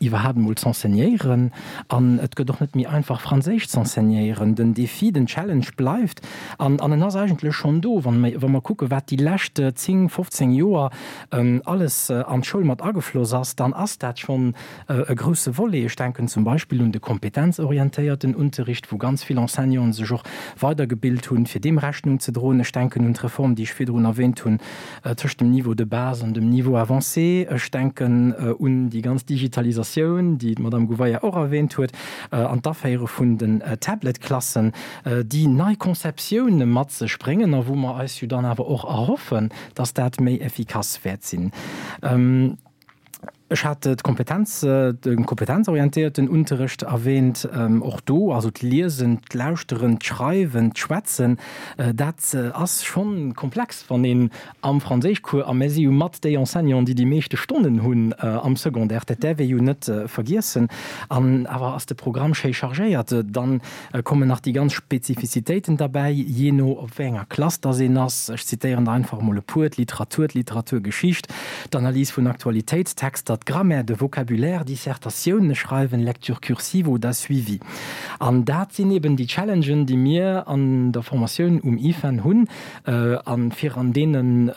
iwwerhaapt emol z'enseignéieren, an et gëtt och net méi einfach, Franséisch z'enseignéieren. Den Défi, den Challenge bleift. An an en ass eigentlech schonn do, wa mer wa mer kucken, wat déi lescht 10, 15 Joer alles an d'Schoul mat agefloss ass, dann ass dat schonn e grousse Volet. Ech denken zum Beispill un de kompetenzorientéierten Unterricht, wou ganz vill Enseignanten sech och weidergebilt hunn, fir deem Rechnung ze droen. Ech denken un d'Reform, déi ech virdrun erwähnt hunn, tëscht dem Niveau de base an dem Niveau avancé. Ech denken un déi ganz Digitalisatioun, déi d'Madame Gouveia och erwähnt huet, an d'Aféiere vun den Tablet-Klassen. déi nei Konzeptioune mat sech bréngen a wou mer eis jo dann awer och erhoffen, dass dat méi effikass wäert sinn. Ech hat d'Kompetenz, de kompetenzorientéierten Unterrecht erwähnt. Och do, also d'Liesen, d'Lauschteren, d'Schreiwen, d'Schwätzen, dat ass scho komplex, wann een am Franséischcours, a mir si jo mat déi Enseignanten, déi déi meeschte Stonnen hunn am Secondaire, dat däerf ee jo net vergiessen, an awer ass de Programm schéi chargéiert. Dann kommen nach déi ganz Spezifizitéiten derbäi, jee no op wéi enger Klass dass een ass. Ech zitéieren der einfach emol e puer, d'Literatur, d'Literaturgeschicht, d'Analys vun Aktualitéitstexter, d'Grammaire, de Vocabulaire, Dissertatioune schreiwen, Lecture cursive oder Suivi. An dat sinn eben déi Challengen, déi mir an der Formatioun um IFEN hunn. A fir an deenen,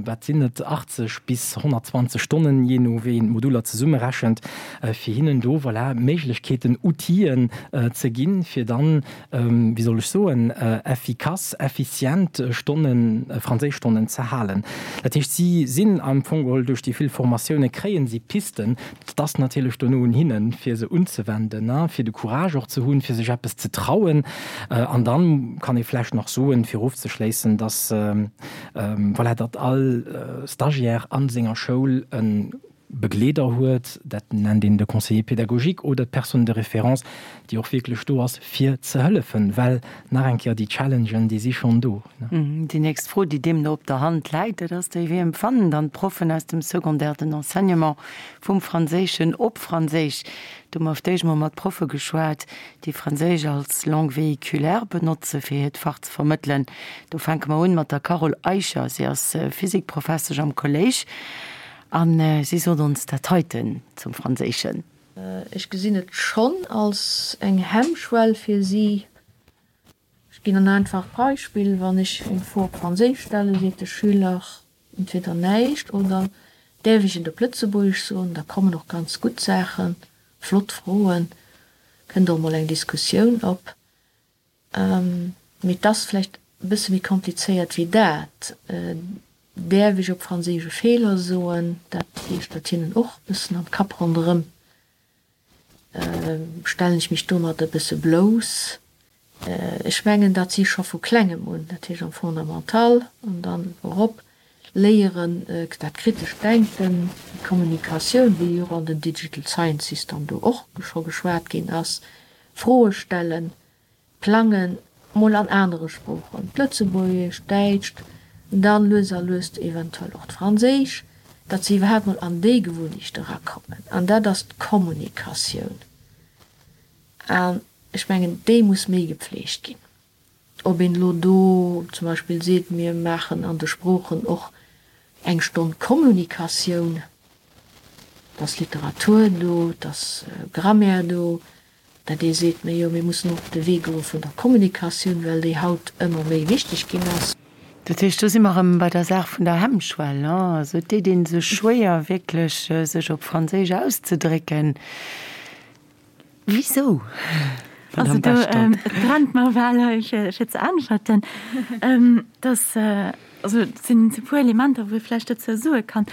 wat sinn et, 80 bis 120 Stonnen, jee no wéi een d'Moduler zesummerechent, fir hinnen do, voilà, Méiglechkeeten, Outiller ze ginn, fir dann, wéi soll ech soen, effikass, effizient Stonnen, Franséischstonnen ze halen. Dat heescht, si sinn am Fong geholl duerch déi vill Formatioune kréie si Pisten. Et ass natierlech dono un hinnen, fir se unzewenden, fir de Courage och ze hunn, fir sech eppes ze trauen. An dann kann ee vläicht nach soen, fir ofzeschléissen, dass, voilà, datt all Stagiaire a senger Schoul e Begleeder huet, dat nennt een de Conseiller pédagogique oder d'Personne de référence, déi och wierklech do ass, fir ze hëllefen, well nach eng Kéier, déi Challengen, déi si schonn do. Déi nächst Fro, déi deemno op der Hand läit, dat ass déi, Wéi empfannen dann d'Proffen aus dem Secondaire den Enseignement vum Franséischen op Franséisch? Do hu mer auf d'éischt mol mat Proffe geschwat, déi Franséisch als Langue véhiculaire benotze fir hiert Fach ze vermëttelen. Do fänke mer un mat der Carole Eicher. Si ass Physikprofessesch am Kolléisch. A si sot ons dat heiten zum Franséischen. Ech gesinn et schonn als eng Hemmschwell fir si. Ech ginn en einfacht Beispill, Wann ech eng Fro op Franséisch stellen, seet de Schüler entweder näischt oder däerf ech et op Lëtzebuergesch soen? Da kommen och ganz gutt Saachen, flott Froen, kënnt och mol eng Diskussioun op. Mee et ass vläicht e bësse méi komplizéiert wéi dat. Däerf ech op Franséisch e Feeler soen? Dat geeschtert hinnen och e bëssen am Kapp ronderëm. Stellen ech mech domat e bësse blouss? Ech mengen, datt si scho vu Klengem un, dat heescht am Fondamental an dann erop, léieren, dat kritescht Denken, déi Kommunikatioun, wéi jo och an den Digital Sciences dann do och scho geschwat ginn ass, Froe stellen, plangen. Mol an anere Sproochen, d'Lëtzebuergescht, d'Däitscht, dann lues a lues eventuell och d'Franséisch, datt se iwwerhaapt mol an déi Gewunnecht erakommen. An dat ass d'Kommunikatioun. An ech mengen, déi muss méi gepflegt ginn. Ob een elo do zum Beispill seet, mir maachen an de Sproochen och eng Stonn Kommunikatioun, et ass Literatur do, et ass Grammaire do, dat ee seet, mä jo, mir mussen och op de Wee goe vun der Kommunikatioun, well déi haut ëmmer méi wichteg ginn ass. Dat heescht, do si mer erëm bei der Saach vun der Hemmschwell, ne? Also et deet ee sech schwéier, wierklech sech op Franséisch auszedrécken. Wisou, Madame Bechtold? Also do, et brennt mer bal hei, fir ze äntwerten. Dass, also et sinn e puer Elementer, wou ee vläicht dozou soe kann,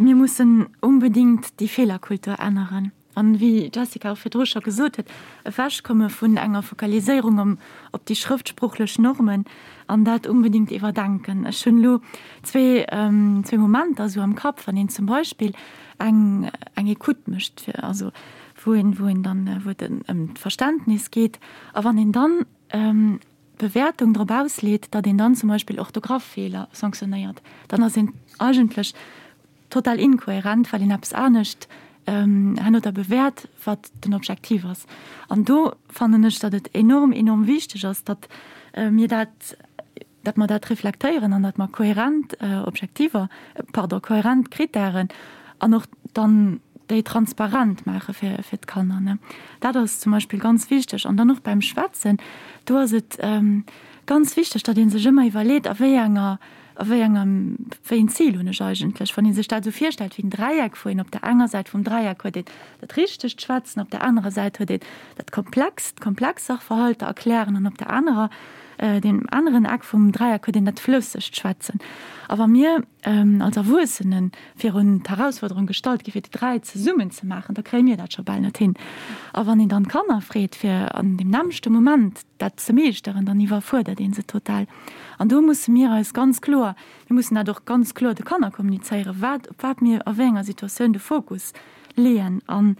Mir mussen unbedéngt déi Feelerkultur änneren. An wéi d'Jessica och virdru scho gesot huet, ewechkomme vun enger Fokaliséierung op déi schrëftsproochlech Normen an dat unbedéngt iwwerdenken. Ech hunn elo zwee Momenter esou am Kapp, wann een zum Beispill eng eng Écoute mécht, fir also wou een wou een dann wou et ëm d'Verständnis geet, a wann een dann d'Bewäertung drop ausleet, datt een dann zum Beispill Orthograph-Feeler sanktionéiert, dann ass een eigentlech total inkohärent, well een eppes anescht herno da bewäert, wat den Objektiv ass. An do fannen ech, datt et enorm, enorm wichteg ass, datt mir dat, datt mer dat reflektéieren an datt mer kohärent Objektiver, pardon, kohärent Kritären an och dann déi transparent maache fir, fir d'Kanner, ne. Dat ass zum Beispill ganz wichteg. An dann och beim Schwätzen, do ass et ganz wichteg, datt ee sech ëmmer iwwerleet, a wéi enger, a wéi engem, wéi een Zil hunn ech eigentlech? Wann ee sech dat esou virstellt wéi en Dräieck, wou een op der enger Säit vum Dräieck huet een dat richtegt Schwätzen, op der anerer Säit huet een dat komplext, komplex Sachverhalter erklären an op der anerer, deem aneren Eck vum Dräieck huet een dat flëssegt Schwätzen. A wa mir als Erwuessene virun d'Herausforderung gestallt gi fir déi 3 zesummen ze maachen, da kréie mir dat scho bal net hin. A wann een dann d'Kanner freet fir an deem nämmlechte Moment dat ze meeschteren, dann iwwerfuerdert ee se total. An do musse mir eis ganz kloer, mir mussen dat och ganz kloer de Kanner kommunizéieren, wat, op wat mir a wéi enger Situatioun de Fokus leeën. An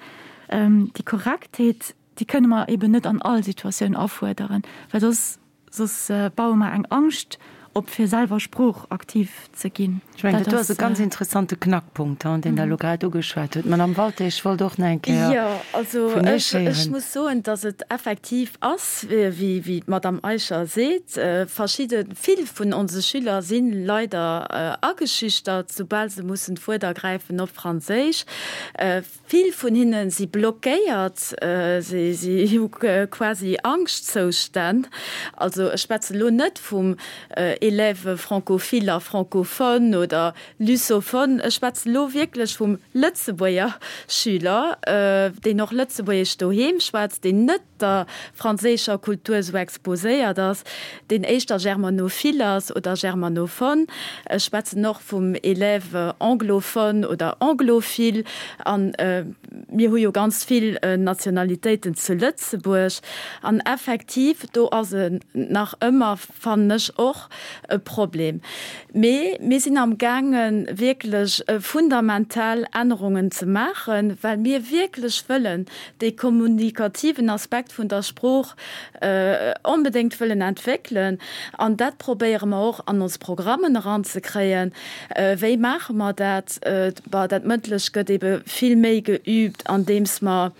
déi Korrektheet, déi kënne mer eben net an all Situatioun afuerderen, well soss Soss baue mer eng Angscht op, fir selwer sproochaktiv ze ginn. Ech mengen, dat do ass e ganz interessante Knackpunkt, deen Der elo grad ugeschwat hutt. Madamm Walté, ech wollt och nach eng Kéier Jo, also vun Iech ech, ech héieren. muss soen, dass et effektiv ass, wéi, wéi d'Madamm Eicher seet, verschidde, vill vun onse Schüler si leider ageschüchtert, soubal se mussen d'Wuert ergräifen op Franséisch. Vill vun hinne si blockéiert, si hu quasi Angschtzoustänn. Also ech schwätzen elo net vum Élève francophile a francophone oder lusophone, ech schwätzen elo wierklech vum Lëtzebuerger Schüler, deen och Lëtzebuergesch doheem schwätzt, deen net der franséischer Kultur esou exposéiert ass, deen éischter germanophile ass oder germanophone. Ech schwätzen och vum Élève anglophone oder anglophile. A mir hu jo ganz vill Nationalitéiten zu Lëtzebuerg. An effektiv, do ass et nach ëmmer, fannen ech och, e Problem. Mee mir sinn am gaange wierklech fundamental Ännerungen ze maachen, well mir wierklech wëllen dee kommunikativen Aspekt vun der Sprooch onbedéngt wëllen entwéckelen. An dat probéiere mer och an ons Programmen eranzekréien. Wéi maache mer dat? Bah, dat Mëndlech gëtt ebe vill méi geübt, andeems mer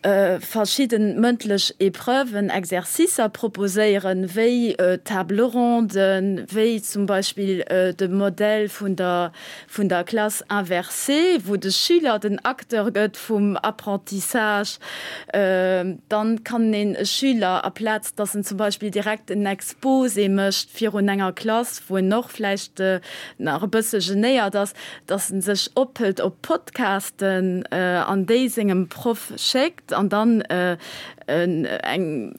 verschidde mëndlech Épreuven, Exercicer proposéieren, wéi Table ronden, wéi zum Beispill de Modell vun der vun der Classe inversée, wou de Schüler den Acteur gëtt vum Apprentissage. Dann kann een e Schüler, aplaz dass en zum Beispill direkt en Exposé mécht virun enger Klass, wou en och vläicht nach e bësse genéiert ass, dass en sech ophëlt op Podcasten an déi sengem Proff schéckt an dann eng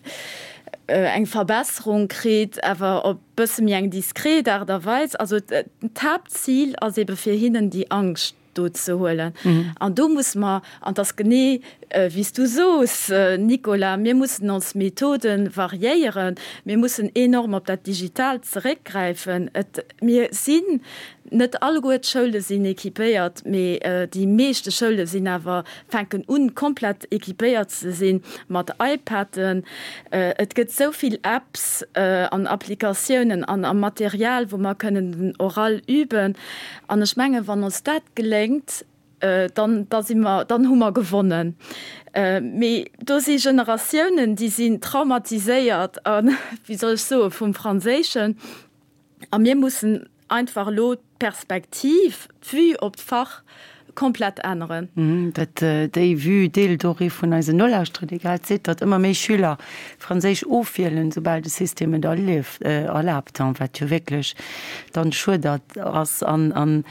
eng Verbesserung kritt, awer op bësse méi eng diskret Aart a Weis. Also d'Haaptzil ass ebe fir hinnen déi Angscht do ze huelen. An do musse mer, an et ass genee. Wéi s du sos, Nicolas, mir mussen ons Methode variéieren, mir mussen enorm op dat Digitaalt zeréckgräifen. Et, mir sinn, net alleguer d'Schoule sinn équipéiert, mee déi meeschte Schoule sinn awer, fänken un, komplett équipéiert ze sinn mat iPaden. Et gëtt esou vill Apps an Applikatiounen an a Material, wou mer kënnen den Oral üben. An ech mengen, wann ons dat geléngt, dann, da si mer, dann hu mer gewonnen. Mee do si Generatiounen, déi sinn traumatiséiert a, wéi soll ech soen, vum Franséischen. A mir mussen einfach elo d'Perspektiv, d'Vue op d'Fach komplett änneren. Dat, déi Vue deelt och ee vun eisen Nolauschterer, dee grad seet, datt ëmmer méi Schüler Franséisch ofwielen, soubal de System et erlaabt, wat jo wierklech dann schued ass an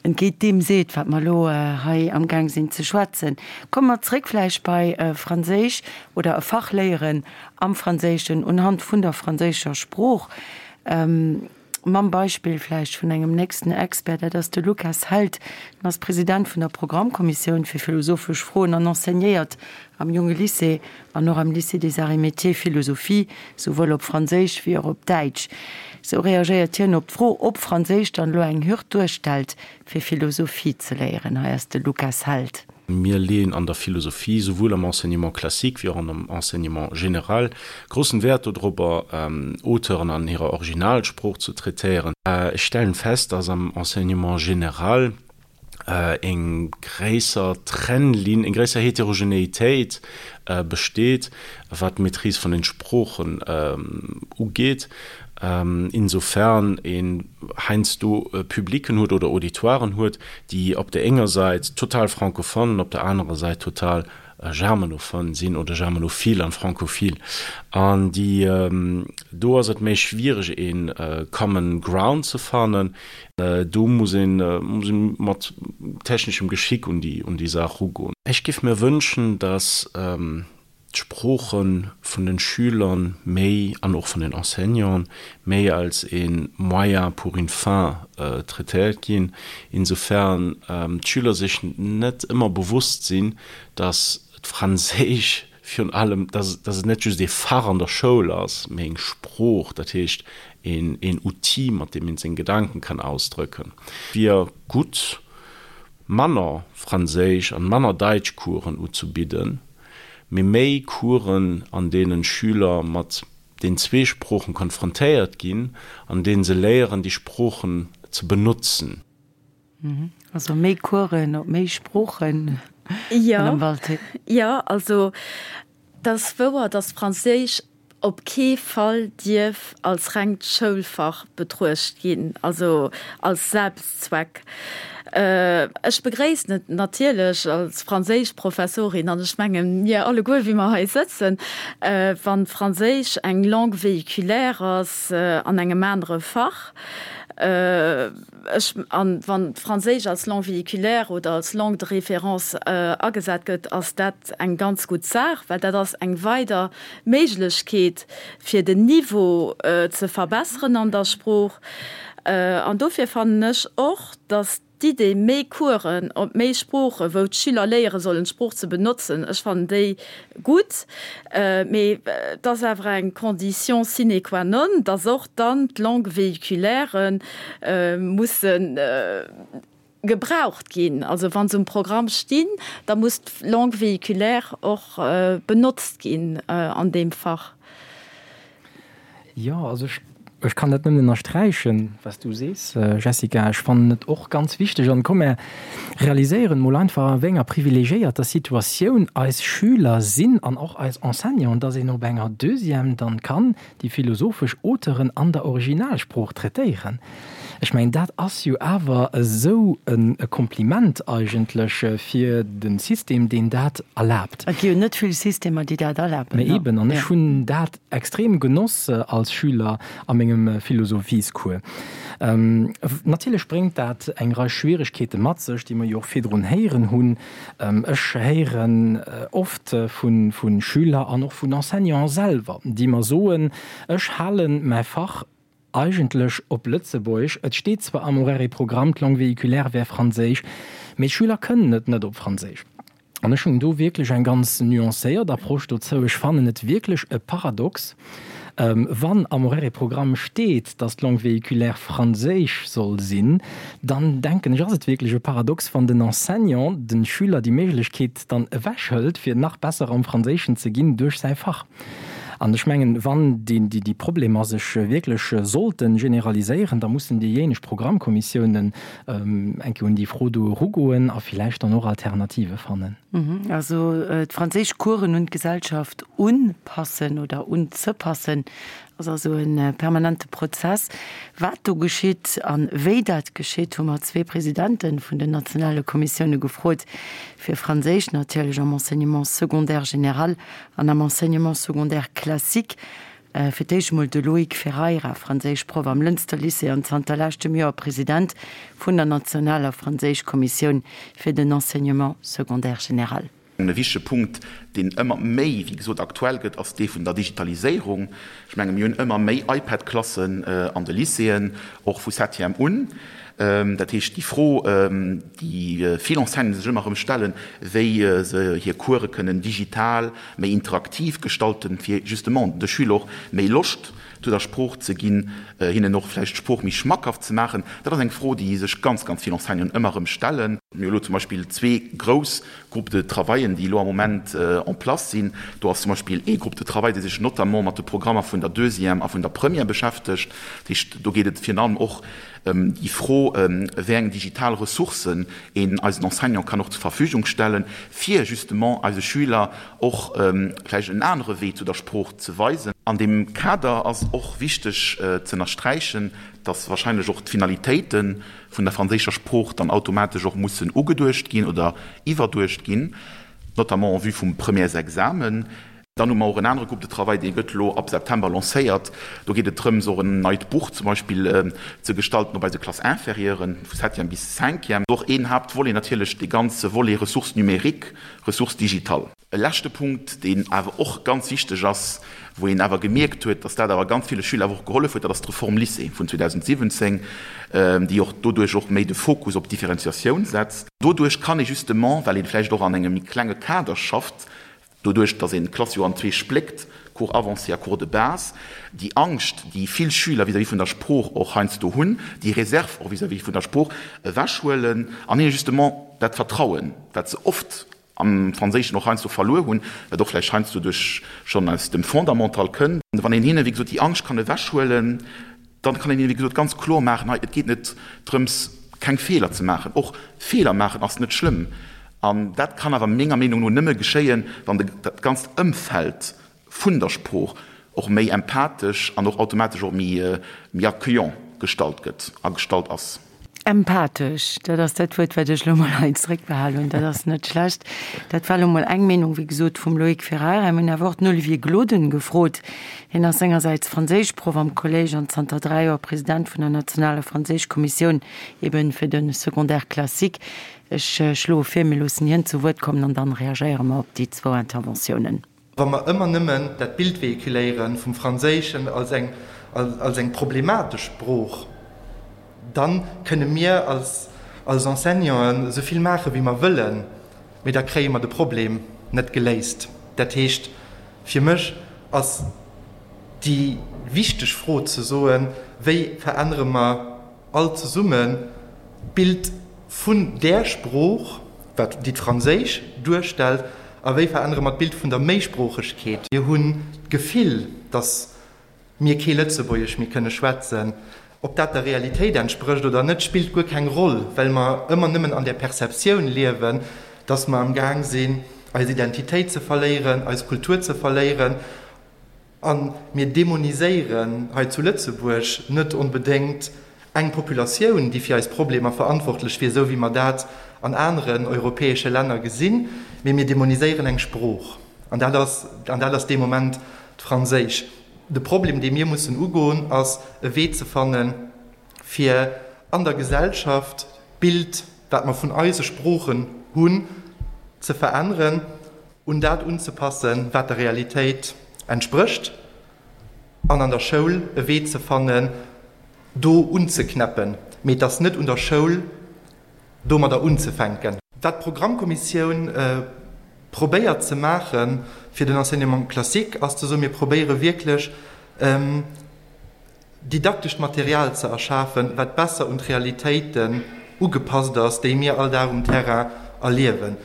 entgéint deem seet, wat mer elo hei amgaang sinn ze schwätzen. Komme mer zréck vläicht bei Franséisch oder e Fach léieren am Franséischen unhand vun der franséischer Sprooch, mam Beispill vläicht vun engem nächsten Expert, dat ass de Lukas Held. En ass President vun der Programmkommissioun fir philosophesch Froen an enseignéiert am Junge Lycée an och am Lycée des Arts et Métiers Philosophie, souwuel op Franséisch wéi och op Däitsch. Sou reagéiert hien op d'Fro, ob Franséisch dann elo eng Hürd duerstellt, fir Philosophie ze léieren. Hei ass de Lukas Held. Mir leeën an der Philosophie, souwuel am Enseignement classique wéi och an am Enseignement général, groussen Wäert dodrobber, Auteuren an hirer Originalsprooch ze traitéieren. Ech stellen fest, dass am Enseignement général eng gréisser Trennlinn, eng gréisser Heterogenéitéit besteet, wat d'Maîtrise vun den Sproochen ugeet, insofern een heiansdo Publicken huet oder Auditoiren huet, déi op der enger Säit total francophone an op der anerer Säit total germanophone sinn oder germanophil an francophil. An déi, do ass et méi schwiereg een common ground ze fannen. Do muss een, muss een mat techneschem Geschick un déi, un déi Saach rugoen. Ech giff mir wënschen, dass d'Sprooche vun den Schüler méi, an och vun den Enseignanten, méi als ee Moyen pour une fin traitéiert ginn, insofern d'Schüler sech net ëmmer bewusst sinn, dass d'Franséisch virun allem, dass et net just ee Fach an der Schoul ass, mee eng Sprooch, dat heescht een Outil, mat deem een seng Gedanken kann ausdrëcken. Wier gutt, manner Franséisch an manner Daitschcoursen uzubidden, mee méi Coursen, an deenen Schüler mat den zwee Sproochen konfrontéiert ginn, an deenen se léieren, déi Sproochen ze benotzen. Also méi Coursen op méi Sproochen, Madame Walté? Jo, also et ass wouer, dass Franséisch op kee Fall dierf als rengt Schoulfach betruecht ginn, also als Selbstzweck. Ech begréissen et natierlech als Franséischprofessorin, an ech mengen, mir alleguer, wéi mer hei sëtzen, wann Franséisch eng Langue véhiculaire ass an engem anere Fach, Ech, an wann d'Franséisch als Langue véhiculaire oder als Langue de référence agesat gëtt, ass dat eng ganz gutt Saach, well dat ass eng weider Méiglechkeet, fir den Niveau ze verbesseren an der Sprooch. An dofir fannen ech och, dass d'Idee, méi Coursen op méi Sproochen, wou d'Schüler léiere sollen, d'Sprooch ze benotzen, ech fannen déi gutt. Mee et ass awer eng Condition sine qua non, dass och dann d'Langues véhiculairen musse gebraucht ginn. Also wa se um Programm stinn, da muss d'Langue véhiculaire och benotzt ginn an deem Fach. Jo, also ech, ech kann dat nëmmen ënnersträichen, wat s du sees, Jessica. Ech fannen et och ganz wichteg. An komm, mär realiséieren emol einfach, a wéi enger privilegiéierter Situatioun eis Schüler sinn an och eis Enseignanten, dass een op enger Deuxième dann kann déi philosophesch Auteuren an der Originalsprooch traitéieren. Ech mengen, dat ass jo awer esou e Kompliment eigentlech fir de System, deen dat erlaabt. Et gi jo net vill Systemer, déi dat erlaben. Mä eben, an ech hunn dat extrem genoss als Schüler a mengem Philosophiescours. Natierlech bréngt dat eng Rei Schwieregkeete mat sech, déi mer jo och virdrun héieren hunn. Ech héieren oft vu Schüler an och vun Enseignanten selwer, déi mer soen, Ech hale mäi Fach eigentlech op Lëtzebuergesch, et steet zwar am Horaire et Programme, d'Langue véhiculaire wär Franséisch, mee d'Schüler kënnen et net op Franséisch. An ech hunn do wierklech eng ganz nuancéiert Approche dozou. Ech fannen et wierklech e Paradox, wann am Horaire-Programm steet, dass d'Langue véhiculaire Franséisch soll sinn, dann denken ech, ass et wierklech e Paradox, wann den Enseignant de Schüler déi Méiglechkeet dann ewechhëlt, fir nach besser am Franséischen ze ginn duerch säi Fach. An ech mengen, wann déi Problemer sech wierklech sollte generaliséieren, da mussen déijéineg Programmkommissiounen eng Kéier un déi Fro do erugoen a villäicht dann och Alternative fannen. Also d'franséisch Coursen un d'Gesellschaft unpassen oder unzepassen, ass also e permanente Prozess. Wat do geschitt a wéi dat geschitt, hu mer zwee Presidente vun den nationale Kommissioune gefrot, fir Franséisch natierlech am Enseignement secondaire général an am Enseignement secondaire classique. Fir d'éischt emol de Loïc Ferreira, Franséischproff am Lënster Lycée an zanter leschtem Joer President vun der nationaler Franséischkommissioun fir den Enseignement secondaire général. E wichtege Punkt, deen ëmmer méi, wéi gesot, aktuell gëtt, ass dee vun der Digitaliséierung. Ech menge mir hunn ëmmer méi iPad-Klassen an de Lycéeën, och vu Septième un. Dat heescht, déi Fro, déi vill Enseignanten sech ëmmer erëm stellen, wéi se hir Course kënnen digital méi interaktiv gestalten, fir justement de Schüler och méi Loscht zu der Sprooch ze ginn, hinnen och vläicht d'Sprooch méi schmackhaft ze maachen, dat ass eng Fro, déi sech ganz, ganz vill Enseignanten ëmmer erëm stellen. Mir hu elo zum Beispill zwee grouss Groupes de travaillen, déi elo am Moment en place sinn. Do ass zum Beispill ee Groupe de travail, dee sech notamment mat de Programmer vun der Deuxième a vun der Première beschäftegt. Dat heescht, do geet et virun allem och ëm déi Fro, wéi eng digital Ressourcen een eisen Enseignant kann och zur Verfügung stellen, fir justement eise Schüler och vläicht en anere Wee zu der Sprooch ze weisen. An deem Kader ass och wichteg ze ënnersträichen, dass wahrscheinlech och d'Finalitéite vun der franséischer Sprooch dann automatesch och mussen ugeduecht ginn oder iwwerduecht ginn, notamment en vue vum Premièresexamen. Dann hu mer och en anere Groupe de travail, dee gëtt elo ab September lancéiert. Do geet et drëms, och en neit Buch zum Beispill ze gestalten, op eise Classes inférieuren, vu Septième bis Cinquième. Och een Haaptvolet natierlech dee ganze Volet Ressources numériques, Ressources digitales. E leschte Punkt, deen awer och ganz wichteg ass, wou een awer gemierkt huet, dass dat awer ganz ville Schüler awer och gehollef huet, dat ass d'Reform Lycée vun 2017, déi och doduerch och méi de Fokus op d'Differenciatioun setzt. Doduerch kann ee justement, well ee vläicht och an engem méi klenge Kader schafft, doduerch dass een d'Klass jo an zwee spléckt, Cours avancé a Cours de base, déi Angscht, déi vill Schüler vis-à-vis vun der Sprooch och heiansdo hunn, déi Réserve och vis-à-vis vun der Sprooch ewechhuelen an hinne justement dat Vertrauen, wat se oft am Franséischen och heiansdo verluer hunn, wat och vläicht heiansdo duerch schonn aus dem Fondamental kënnt. Wann een hinne wéi gesot déi Angscht kann ewechhuelen, dann kann een hinne wéi gesot ganz kloer maachen, hei et geet net drëms keng Feeler ze maachen, och Feeler maachen ass net schlëmm. An dat kann awer menger Meenung no nëmme geschéien, wann de dat ganzt Ëmfeld vun der Sprooch och méi empathesch an och automatesch och méi méi accueillant gestalt gëtt a gestalt ass. Empathesch, dat ass dat Wuert, wat ech elo mol hei zréckbehal hunn. Dat ass net schlecht. Dat war elo mol eng Meenung, wéi gesot, vum Loïc Ferreira. Mir hunn awer och den Olivier Gloden gefrot. Hien ass sengersäits Franséischproff am Kolléisch an zanter 3 Joer President vun der nationaler Franséischkommissioun, eben fir de Secondaire classique. Ech schloe vir, mir loossen hien zu Wuert kommen an dann reagéiere mer op déi zwou Interventiounen. Wa mer ëmmer nëmmen dat Bild véhiculéiere vum Franséischen als eng, als eng problematesch Sprooch, da kënne mir als, als Enseignanten esou vill maache wéi mer wëllen, mee da kréie mer de Problem net geléist. Dat heescht, fir mech ass déi wichteg Fro ze soen, Wéi verännere mer all zesummen d'Bild vun där Sprooch, wat déi d'Franséisch duerstellt, a wéi verännere mer d'Bild vun der Méisproochegkeet? Mir hunn d'Gefill, datt mir kee Lëtzebuergesch méi kënne schwätzen. Ob dat der Realitéit entsprécht oder net, spillt guer keng Roll, well mer ëmmer nëmmen an där Perceptioun liewen, datt mer am Gaang sinn, eis Identitéit ze verléieren, eis Kultur ze verléieren. A mir demoniséieren hei zu Lëtzebuerg net onbedéngt eng Populatioun, déi fir eis Problemer verantwortlech wier, esou wéi mer dat an aneren europäesche Länner gesinn, mee mir demoniséieren eng Sprooch. An dat ass, an dat ass dee Moment d'Franséisch. De Problem, dee mir mussen ugoen, ass e Wee ze fannen, fir an der Gesellschaft d'Bild, wat mer vun eise Sproochen hunn, ze veränneren. un dat unzepassen, wat der Realitéit entsprécht, an an der Schoul e Wee ze fannen, do unzeknäppen. Mee et ass net un der Schoul, domadder unzefänken. Wat d'Programmkommissioun. probéiert ze maache fir den Enseignement classique, ass ze soen, mir probéiere wierklech didaktescht Material ze erschafen, wat besser un d'Realitéiten ugepasst ass, déi mir all Dag um Terrain erliewen.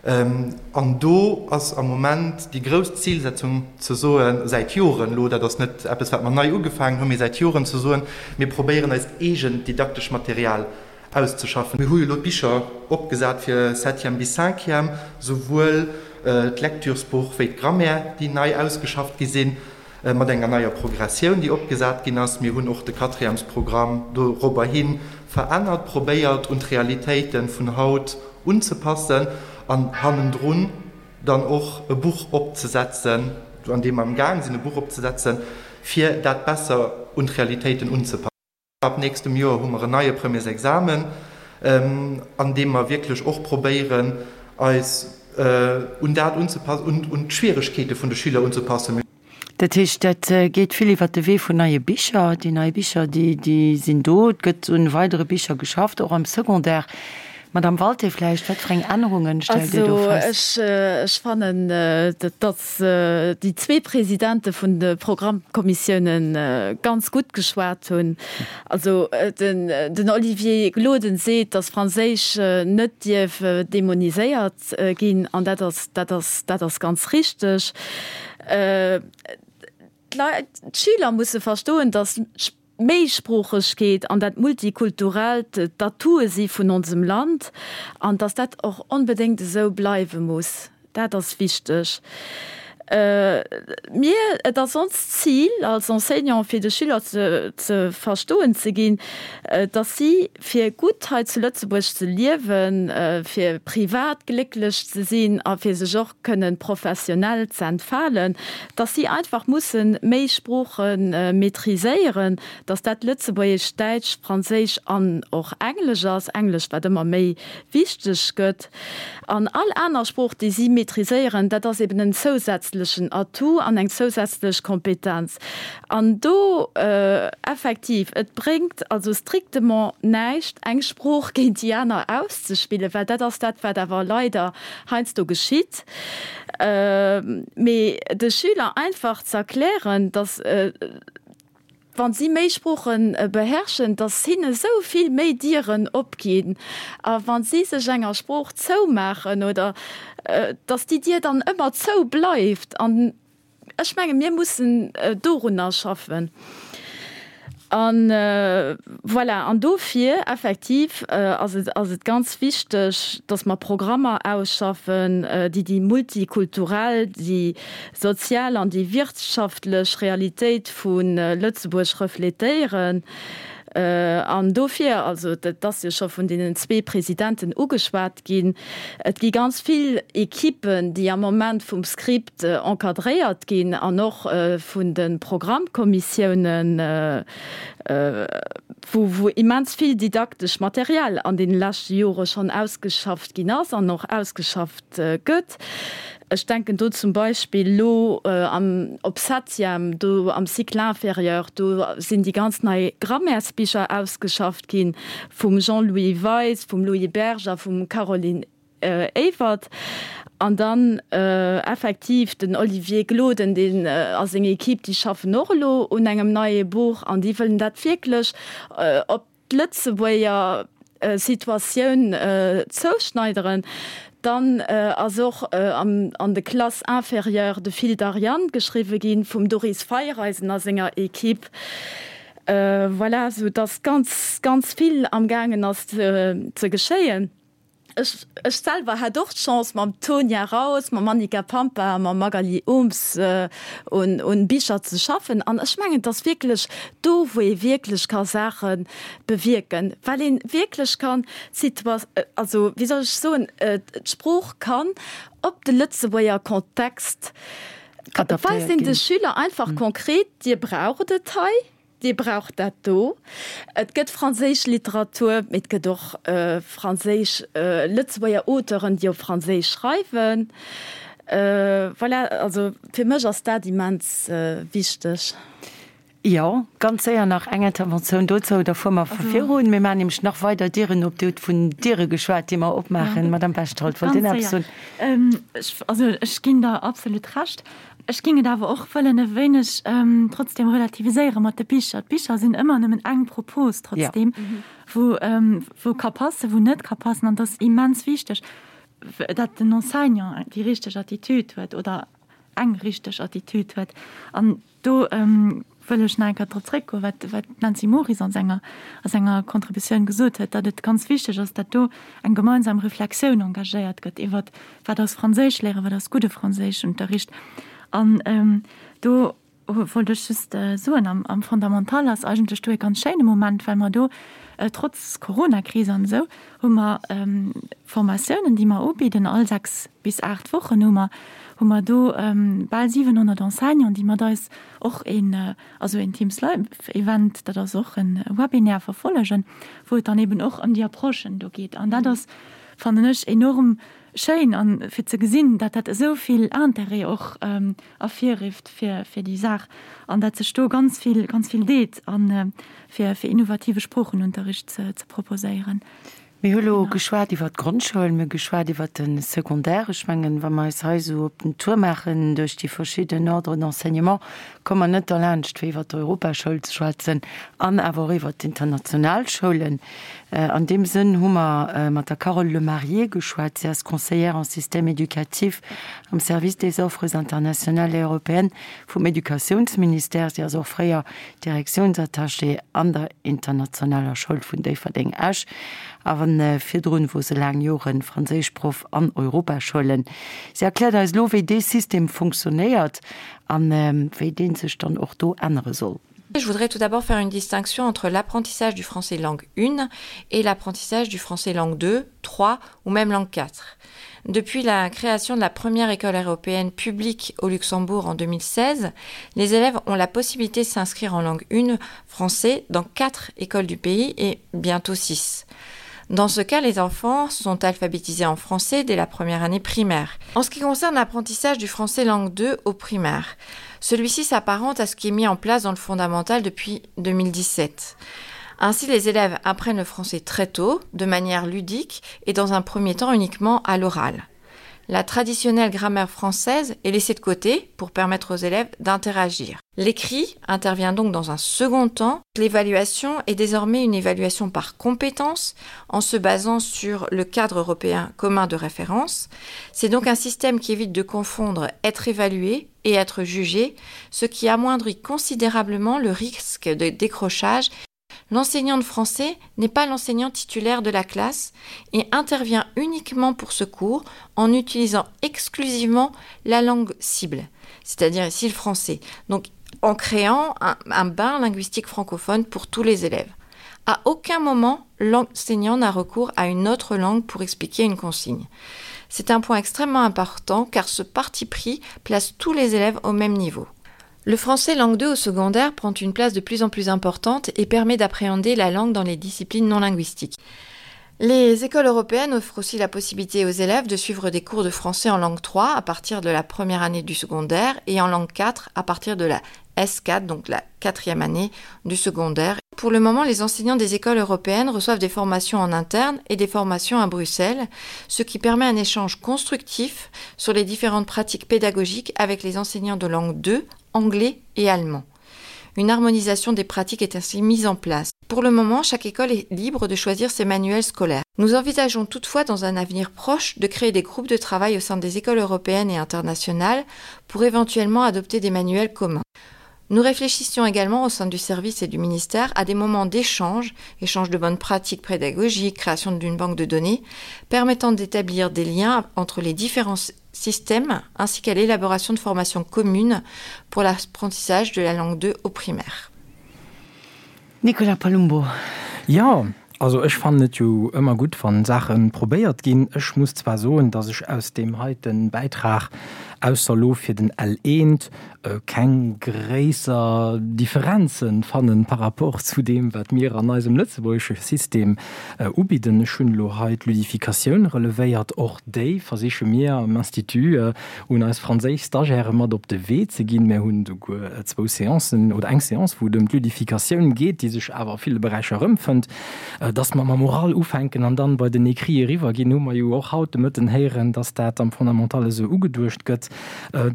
An do ass am Moment déi grouss Zilsetzung ze soen, säit Joren elo, dat ass net eppes, wat mer nei ugefaangen hunn, mee säit Joren ze soen, mir probéieren eist eegent didaktescht Material auszeschaffen. Mir hu jo elo d'Bicher opgesat fir Septième bis Cinquième, souwuel d'Lecturesbuch wéi d'Grammaire, déi nei ausgeschafft gi sinn, mat enger neier Progressioun, déi opgesat ginn ass. Mir hunn och de Quatrièmesprogramm dorobber hi verännert, probéiert un d'Realitéite vun haut unzepassen an hannendrun dann och e Buch opzesetzen, an deem mer am Gaang sinn e Buch opzesetzen, fir dat besser un d'Realitéiten unzepassen. Ab nächstem Joer hu mer en neie Premiersexamen, an deem mer wierklech och probéieren, eis un dat unzepassen, un d'Schwieregkeete vun de Schüler unzepassen. Dat heescht, dat geet vill iwwert de Wee vun neie Bicher. Déi nei Bicher, déi sinn do. Et gëtt un weidere Bicher geschafft, och am Secondaire. Madame Walté, vläicht, wat fir eng Ännerungen stellt Dir do fest? Also ech fannen, datt déi zwee Presidente vun de Programmkommissiounen ganz gutt geschwat hunn. Also den Olivier Gloden seet, datt Franséisch net dierf demoniséiert ginn, an dat ass, dat ass, dat ass ganz richteg. D'Leit, d'Schüler musse verstoen, datt D'Méisproochegkeet an dat Multikulturellt d'Atoue si vun onsem Land an dass dat och onbedéngt esou bleiwe muss, dat ass wichteg. Mir, et ass onst Zil als Enseignant fir de Schüler ze verstoen ze ginn, dass si fir gutt hei zu Lëtzebuerg ze liewen, fir privat glécklech ze sinn a fir sech och kënnen professionell ze entfalen, dass si einfach mussen méi Sprooche maîtriséieren, dass dat Lëtzebuergesch, Däitsch, Franséisch an och Englesch ass, Englesch wat ëmmer méi wichteg gëtt. An all aner Sprooch déi si maîtriséieren, dat ass eben en zousätzlechen Atout an eng zousätzlech Kompetenz. An do effektiv, et bréngt also strictement näischt eng Sprooch géint déi aner auszespillen, well dat ass dat wat awer leider heiansdo geschitt, mee de Schüler einfach ze erklären, datt wa si méi Sprooche beherrschen, datt hinne sou vill méi Dieren opginn a wa si sech enger Sprooch zoumaachen oder datt déi Dier dann ëmmer zou bleift. An Ech menge mir mussen dorunner schaffen. A voilà, an dofir effektiv ass et, ass et ganz wichteg, datt mer Programmer ausschaffen, déi déi multikulturell, déi sozial an déi wirtschaftlech Realitéit vu Lëtzebuerg refletéieren. An dofir, also dat ass jo scho vun deenen zwee Presidenten ugeschwat ginn, et gi ganz vill Equippen, déi am Moment vum Script encadréiert ginn an och vun de Programmkommissiounen, wou wou immens vill didaktesch Material an deene leschte Jore schonn ausgeschafft ginn ass an och ausgeschafft gëtt. Ech denken do zum Beispill elo am op Septième, do am Cycle inférieur, do sinn déi ganz nei Grammaires-Bicher ausgeschafft gi vum Jean-Louis Weis, vum Louis Berg a vum Caroline Ewert. An dann effektiv den Olivier Gloden, deen a seng Equipe, déi schaffen och elo un engem neie Buch an déi wëllen dat wierklech op d'Lëtzebuerger Situatioun zouschneideren. Dann ass och an de Classes inférieures de Fil d'Ariane geschriwwe ginn, vum Doris Feiereisen a senger Equipe. Voilà, sou dass ganz, ganz vill amgaangen ass ze geschéien. Ech, ech selwer hat och d'Chance mam Tonia Raus, mam Annika Pampa a mam Magali Ooms un, un Bicher ze schaffen. An ech mengen, et ass wierklech do, wou ee wierklech ka Saache bewierken, well ee wierklech kann d'Situa, also wéi soll ech soen, d'Sprooch kann op de Lëtzebuerger Kontext, Adaptéiert weist een de ginn. Schüler einfach konkret, Dir braucht et hei. Dir braucht dat do. Et gëtt franséisch Literatur, mee et gëtt och franséisch, Lëtzebuerger Auteuren, déi op Franséisch schreiwen. Voilà, also fir mech ass dat immens wichteg. Jo, ganz séier nach eng Interventioun dozou, da fuere mer virun. Mir maachen nämlech nach weider Dieren op. Dir hutt vun Diere geschwat, déi mer opmaachen. Madame Bechtold, wollt Dir nach eppes soen? Also ech ginn der absolut Recht. Ech géing et awer och wëllen e wéineg trotzdem relativiséiere mat de Bicher. D'Bicher sinn ëmmer nëmmen eng Propos trotzdem, wou wou ka passen, wou net ka passen. An et ass immens wichteg, datt den Enseignant déi richteg Attitude huet oder eng richteg Attitude huet. An Do wëll ech nach eng Kéier drop zréckgoen, wat wat d'Nancy Moris an senger a senger Contributioun gesot huet, datt et ganz wichteg ass, datt do eng gemeinsam Reflexioun engagéiert gëtt iwwert, wat ass Franséisch léieren, wat ass gudde Franséischunterricht. An do wollt ech just soen, am am Fondamental ass eigentlech do e ganz schéine Moment, well mer do trotz Coronakris an esou hu mer Formatiounen, déi mer ubidden all 6 bis 8 Wochen hu mer hu mer do bal 700 Enseignanten, déi mat eis och een also een Teams Live Event, dat ass och e Webinaire, verfollegen, wou et dann eben och ëm déi Approchen do geet. An dat ass, fannen ech, enorm schéin an fir ze gesinn, datt dat esou vill Interêt och ervirrifft fir fir déi Saach an datt sech do ganz vill ganz vill deet a fir fir innovative Sproochenunterricht ze ze proposéieren. Mir hu lo geschwat iwwert d'Grondschoul, mir hu geschwat iwwert de Secondaire. Ech mengen, wa mer eis hei esou op den Tour maachen duerch déi verschidden Ordres d'enseignement, komme mer net derlaanscht, fir iwwert d'Europaschoul ze schwätzen an awer och iwwert d'international Schoulen. An deem Sënn hu mer mat der Carole Lemarié geschwat. Si ass Conseillère en système éducatif am Service des offres internationales et européennes vum Educatiounsministère. Si ass och fréier Direktiounsattachée an der Internationaler Schoul vun Déifferdeng-Esch a virdrun wor se laang Joren Franséischproff an Europaschoulen. Si erkläert eis elo wéi dee System funktionéiert an wéi dee sech dann och do ännere soll. Je voudrais tout d'abord faire une distinction entre l'apprentissage du français langue 1 et l'apprentissage du français langue 2, 3 ou même langue 4. Depuis la création de la première école européenne publique au Luxembourg en 2016, les élèves ont la possibilité de s'inscrire en langue 1 français dans quatre écoles du pays et bientôt six. Dans ce cas, les enfants sont alphabétisés en français dès la première année primaire. En ce qui concerne l'apprentissage du français langue 2 au primaire, celui-ci s'apparente à ce qui est mis en place dans le fondamental depuis 2017. Ainsi, les élèves apprennent le français très tôt, de manière ludique et dans un premier temps uniquement à l'oral. La traditionnelle grammaire française est laissée de côté pour permettre aux élèves d'interagir. L'écrit intervient donc dans un second temps. L'évaluation est désormais une évaluation par compétence en se basant sur le cadre européen commun de référence. C'est donc un système qui évite de confondre être évalué et être jugé, ce qui amoindrit considérablement le risque de décrochage L'enseignant de français n'est pas l'enseignant titulaire de la classe et intervient uniquement pour ce cours en utilisant exclusivement la langue cible, c'est-à-dire ici le français, donc en créant un, un bain linguistique francophone pour tous les élèves. À aucun moment, l'enseignant n'a recours à une autre langue pour expliquer une consigne. C'est un point extrêmement important car ce parti pris place tous les élèves au même niveau. Le français langue 2 au secondaire prend une place de plus en plus importante et permet d'appréhender la langue dans les disciplines non linguistiques. Les écoles européennes offrent aussi la possibilité aux élèves de suivre des cours de français en langue 3 à partir de la première année du secondaire et en langue 4 à partir de la S4, donc la quatrième année du secondaire. Pour le moment, les enseignants des écoles européennes reçoivent des formations en interne et des formations à Bruxelles, ce qui permet un échange constructif sur les différentes pratiques pédagogiques avec les enseignants de langue 2 anglais et allemand. Une harmonisation des pratiques est ainsi mise en place. Pour le moment, chaque école est libre de choisir ses manuels scolaires. Nous envisageons toutefois dans un avenir proche de créer des groupes de travail au sein des écoles européennes et internationales pour éventuellement adopter des manuels communs. Nous réfléchissions également au sein du service et du ministère à des moments d'échange, échange de bonnes pratiques pédagogiques, création d'une banque de données, permettant d'établir des liens entre les différents systèmes ainsi qu'à l'élaboration de formations communes pour l'apprentissage de la langue 2 au primaire. Nicolas Palumbo. Jo, also ech fannen et jo ëmmer gutt, wann Saachen probéiert ginn. Ech muss zwar soen, dass ech aus deem heiten Bäitrag. ausser elo fir den L1, keng gréisser Differenze fannen par rapport zu deem, wat mir an eisem lëtzebuergesche System ubidden. Ech hunn elo hei d'Ludificatioun relevéiert. Och déi versiche mir am Institut un eis franséisch Stagiairë mat op de Wee ze ginn. Mir hunn esouguer zwou Seancen oder eng Seance, wou et ëm d'Ludificatioun geet, déi sech awer a ville Beräicher erëmfënnt. Dass mer mam Oral ufänken an dann bei den Écrit eriwwerginn, hu mer jo och haut de Mëtten héieren, dass dat am Fondamental esou ugeduecht gëtt.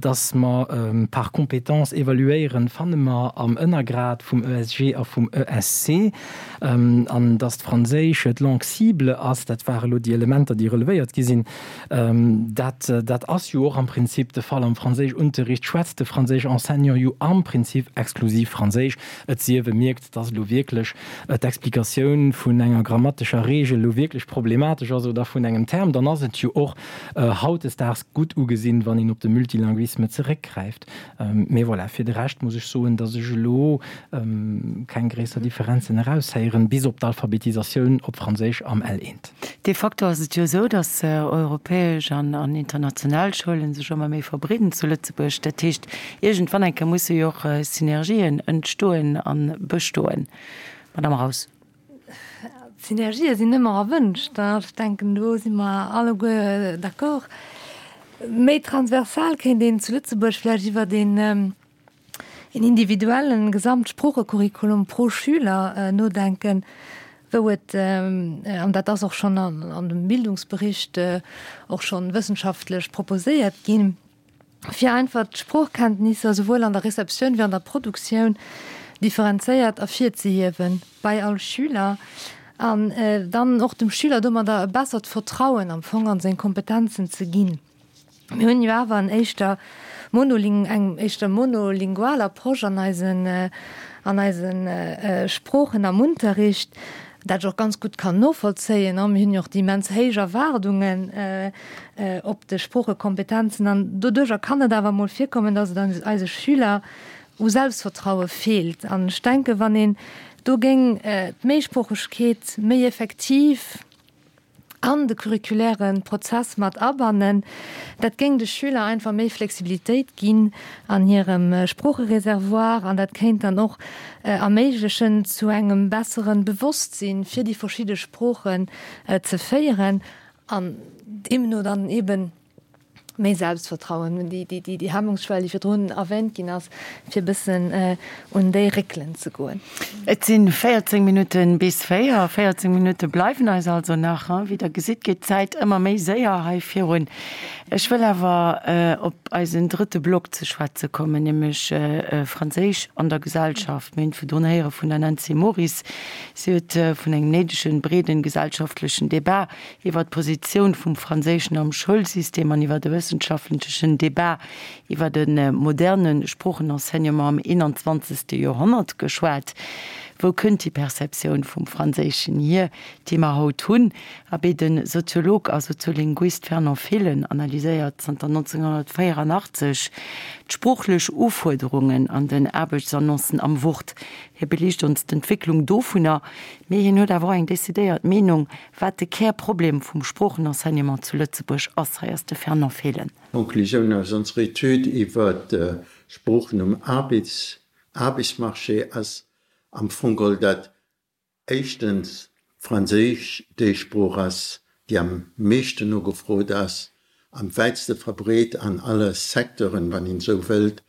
Dass mer par compétence évaluéieren, fanne mer am Ënnergrad vum ESG a vum ESC. An dass d'Franséisch d'Langue cible ass, dat ware lo déi Elementer, déi relevéiert gi sinn. Dat, dat ass jo och am Prinzip de Fall. Am Franséischunterricht schwätzt de franséisch Enseignant jo am Prinzip exklusiv Franséisch, et sief e mierkt, dass elo wierklech d'Explikatioun vun enger grammatescher Regel elo wierklech problematesch ass oder vun engem Term. Dann ass et jo och hautdesdaags gutt ugesinn, wann een op de Multilinguisme zeréckgräift. Mee voilà, fir de Rescht muss ech soen, dass ech elo keng gréisser Differenzen eraushéieren, bis op d'Alphabetisatioun op Franséisch am L1. De facto ass et jo esou, dass europäesch an international Schoulen sech ëmmer méi verbreeden zu Lëtzebuerg. Dat heescht, iergendwann eng Kéier musse jo och Synergien entstoen a bestoen. Madame Raus. Synergië sinn ëmmer erwënscht, ech denken do si mer alleguer d'accord. Méi transversal kéint een zu Lëtzebuerg vläicht iwwert een een individuellen Gesamtsproochecurriculum pro Schüler nodenken, wou et, an dat ass och schonn an dem Bildungsbericht och schonn wëssenschaftlech proposéiert ginn, fir einfach d'Sproochkenntnisser souwuel an der Receptioun wéi an der Produktioun differenzéiert ervirzehiewen bei all Schüler an dann och dem Schüler domadder e bessert Vertrauen am Fong an seng Kompetenzen ze ginn. Mir hunn jo awer en éischter monoling eng éischter monolingual Approche an eisen an eise Sproochen am Unterricht, dat ech och ganz gutt kann novollzéien. Mir hunn jo och déi immens héich Erwaardungen op de Sproochekompetenzen an doduerjer kann et awer emol virkommen, dass et eise Schüler u Selbstvertraue feelt. An ech denken, wann een do géing d'Méisproochegkeet méi effektiv an de curriculäre Prozess mat abannen, dat géing de Schüler einfach méi Flexibilitéit ginn an hirem Sproochereservoir an dat kéint dann och erméiglechen, zu engem bessere Bewosstsinn fir déi verschidde Sproochen ze féieren an deemno dann eben méi Selbstvertrauen hunn, déi, déi, déi Hemmungsschwell, déi virdrun erwähnt ginn ass, fir e bëssen un déi réckelen ze goen. Et si 14 Minutte bis 4. 14 Minutte bleiwen eis also nach. Wéi Der gesitt, geet d'Zäit ëmmer méi séier hei virun. Ech wëll awer op eisen drëtte Block ze schwätze kommen, nämlech Franséisch an der Gesellschaft. Mir hunn virdrun héiere vun der Nancy Moris. Si huet vun engem néidegen, breeden gesellschaftlechen Débat iwwer d'Positioun vum Franséischen am Schoulsystem an iwwer e wëssenschaftlechen Debat iwwer e moderne Sproochenenseignement am 21. Joerhonnert geschwat. Wou kënnt déi Perceptioun vum Franséischen hier, déi mer haut hunn? Abee, de Soziolog a Soziolinguist Fernand Fehlen analyséiert zanter 1984 d'sproochlech Ufuerderungen an den Aarbechtsannoncen am Wort. Hie beliicht ons d'Entwécklung dovunner, mee hien huet awer och eng decidéiert Meenung, Wat de Kärproblem vum Sproochenenseignement zu Lëtzebuerg ass, hei ass de Fernand Fehlen. D'Konklusioun aus onserer Etüd iwwer d'Sproochen um Aarbechtsmarché ass am Fong geholl, datt éischtens Franséisch déi Sprooch ass, déi am meeschten nogefrot ass, am wäitste verbreet an alle Secteuren, wann een esou wëllt,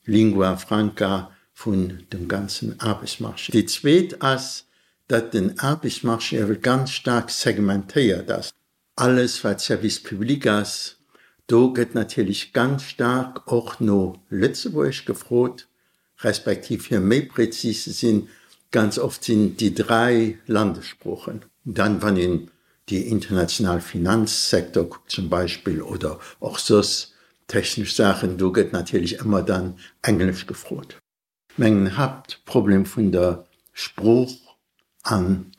Lingua franca vun dem ganzen Aarbechtsmarché. Déi zweet ass, datt den Aarbechtsmarché ewell ganz staark segmentéiert ass. Alles wat Service public ass, do gëtt natierlech ganz staark och no Lëtzebuergesch gefrot, respektiv fir méi prezis ze sinn, ganz oft sinn et déi dräi Landessproochen. Dann, wann een déi international Finanzsektor kuckt zum Beispill oder och soss technesch Saachen, do gëtt natierlech ëmmer dann Englesch gefrot. Mengen Haaptproblem vun der Sprooch an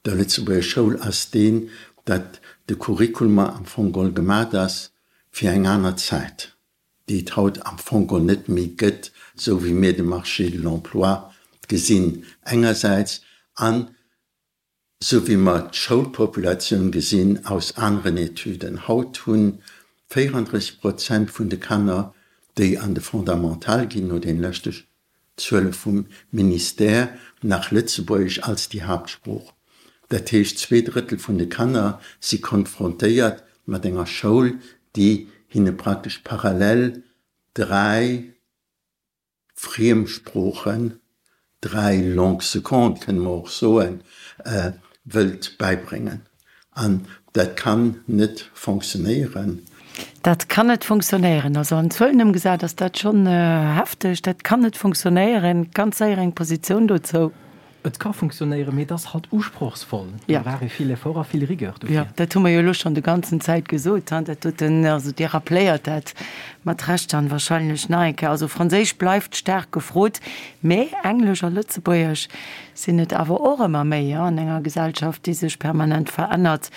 der Lëtzebuerger Schoul ass deen, datt de Curriculum am Fong geholl gemat ass fir eng aner Zäit, déi et haut am Fong geholl net méi gëtt, esou wéi mir de Marché de l'emploi gesinn engersäits an Sou wéi mer d'Schoulpopulatioun gesinn aus aneren Etüden. Haut hunn. 34 Prozent vun de Kanner, déi an de Fondamental ginn, no den leschte Zuele vum Ministère, nach Lëtzebuergesch als déi Haaptsprooch. Dat heescht, zweedrëttel vun de Kanner si konfrontéiert mat enger Schoul, déi hinne praktesch parallel 3 Friemsproochen, 3 Langues secondes kënne mer och soen, wëllt bäibréngen. An dat kann net fonctionnéieren. Dat kann net fonctionnéieren. Also an Zuelen ëmgesat ass dat schonn hefteg. Dat kann net fonctionnéieren. Ganz séier eng Positioun dozou. Et ka funktionéieren, mee et ass halt usprochsvoll. Do brauch ee vill Effort a vill Rigueur dofir. Jo, dat hu mer jo elo schonn de ganzen Zäit gesot. Dat doten, also Dir rappléiert dat mat Recht dann wahrscheinlech nach eng Kéier. Also Franséisch bleift staark gefrot, mee Englesch a Lëtzebuergesch sinn et awer och ëmmer méi an enger Gesellschaft, déi sech permanent verännert.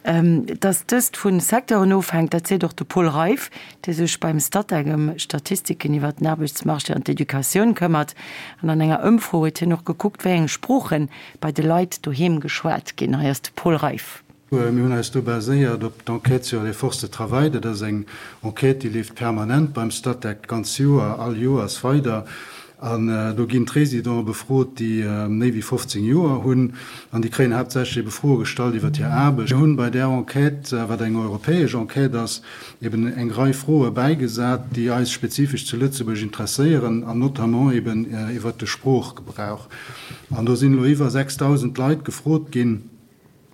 Dass dëst vu Secteuren ofhänkt, dat seet och de Paul Reiff, dee sech beim Statec ëm Statistiken iwwer den Aarbechtsmarché an d'Educatioun këmmert. An an enger Ëmfro huet hien och gekuckt, wéi eng Sprooche bei de Leit doheem geschwat ginn. Hei ass de Paul Reiff. Mir hunn eis do baséiert op d'Enquête sur les forces de travail. Dat ass eng Enquête, déi leeft permanent beim Statec, d'ganz Joer, all Joers weider. An do ginn d'Résidenten befrot, déi méi wéi 15 Joer hunn. An déi kréien haaptsächlech ebe Froe gestallt iwwer hir Aarbecht. Mir hunn bei där Enquête, wat eng europäesch Enquête ass, eben eng Rei Froe bäigesat, déi eis spezifesch zu Lëtzebuerg interesséieren, an notamment eben iwwert de Sproochgebrauch. An do sinn elo iwwer 6.000 Leit gefrot ginn.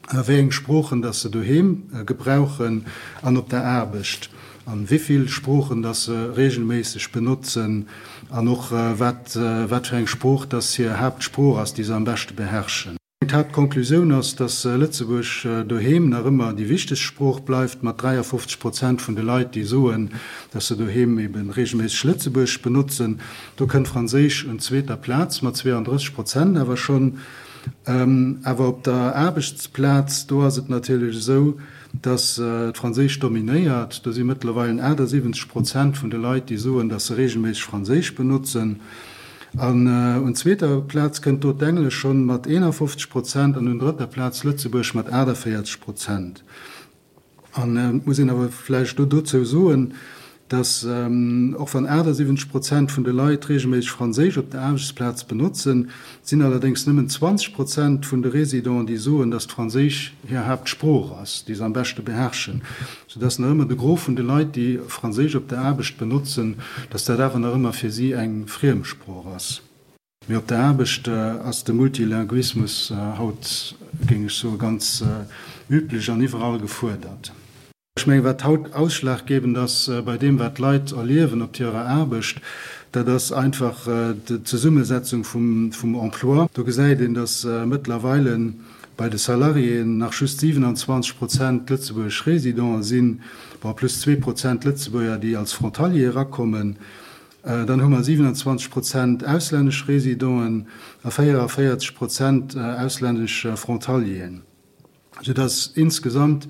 wéi eng Sproochen dass se doheem gebrauchen an op der Aarbecht an wéivill Sproochen dass se regelméisseg benotzen an och wat wat fir eng Sprooch dass hir Haaptsprooch ass, déi se am beschte beherrschen. D'Haaptkonklusioun ass, dass Lëtzebuerg doheem nach ëmmer déi wichtegst Sprooch bleift, mat 53 Prozent vun de Leit, déi soen, dass se doheem eben regelméisseg Lëtzebuergesch benotzen. Do kënnt Franséisch un zweeter Plaz mat 32 Prozent awer schonn. Awer op der Aarbechtsplaz, do ass et natierlech esou, datt d'Franséisch dominéiert. Do si mëttlerweilen 78 Prozent vun de Leit, déi soen, datt se reegelméisseg Franséisch benotzen. An un zweeter Plaz kënnt do d'Englesch schonn mat 51 Prozent an un drëtter Plaz Lëtzebuerg mat 48 Prozent. An et muss een awer vläicht do dozou soen, dass, och wann 78 Prozent vun de Leit reegelméisseg Franséisch op der Aarbechtsplaz benotzen, et sinn allerdéngs nëmmen 20 Prozent vun de Résidenten, déi soen, dass d'Franséisch hir Haaptsprooch ass, déi se am beschte beherrschen, soudass nach ëmmer de Gros vun de Leit, déi Franséisch op der Aarbecht benotzen, dass dat awer nach ëmmer fir si eng Friemsprooch ass. Mee op der Aarbecht ass de Multilinguismus haut, géing ech soen, ganz üblech an iwwerall gefuerdert. Ech mengen, wat haut ausschlaggebend ass bei deem, wat d'Leit erliewen op hirer Aarbecht, dat ass einfach d'Zesummesetzung vum Emploi. Do gesäit een, datt mëttlerweile bei de Salariéen nach just 27 Prozent lëtzebuergesch Résidenten sinn, bon, plus 2 Prozent Lëtzebuerger, déi als Frontalier erakommen. Dann hu mer 27 Prozent auslännesch Résidenten a 44 Prozent auslännesch Frontalieren, soudass insgesamt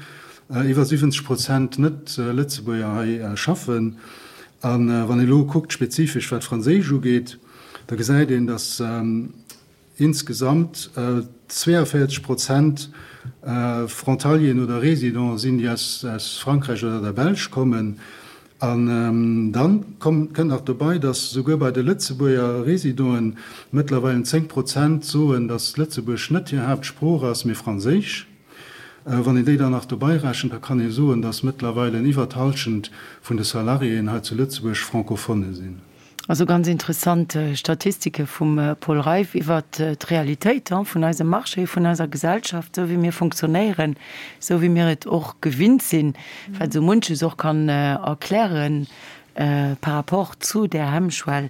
iwwer 70 Prozent Net-Lëtzebuerger hei schaffen. A wann ee elo kuckt, spezifesch wat Franséisch ugeet, da gesäit een, dass Insgesamt 42 Prozent Frontalieren oder Résidenten sinn, déi aus Frankräich oder der Belsch kommen. An dann kënnt nach dobei, dass souguer bei de Lëtzebuerger Résidenten mëttlerweilen 10 Prozent soen, dass Lëtzebuergesch net hir Haaptsprooch ass, mee Franséisch. Wann een déi dann nach dobei rechent, da kann ee soen, dass mëttlerweilen iwwer d'Hallschent vun de Salariéen hei zu Lëtzebuerg Francophone sinn. Also ganz interessant Statistike vum Paul Reiff iwwert d'Realitéit vun eisem Marché, vun eiser Gesellschaft, esou wéi mir funktionéieren, esou wéi mir et och gewinnt sinn, wat esou munches och kann erkläre par rapport zu där Hemmschwell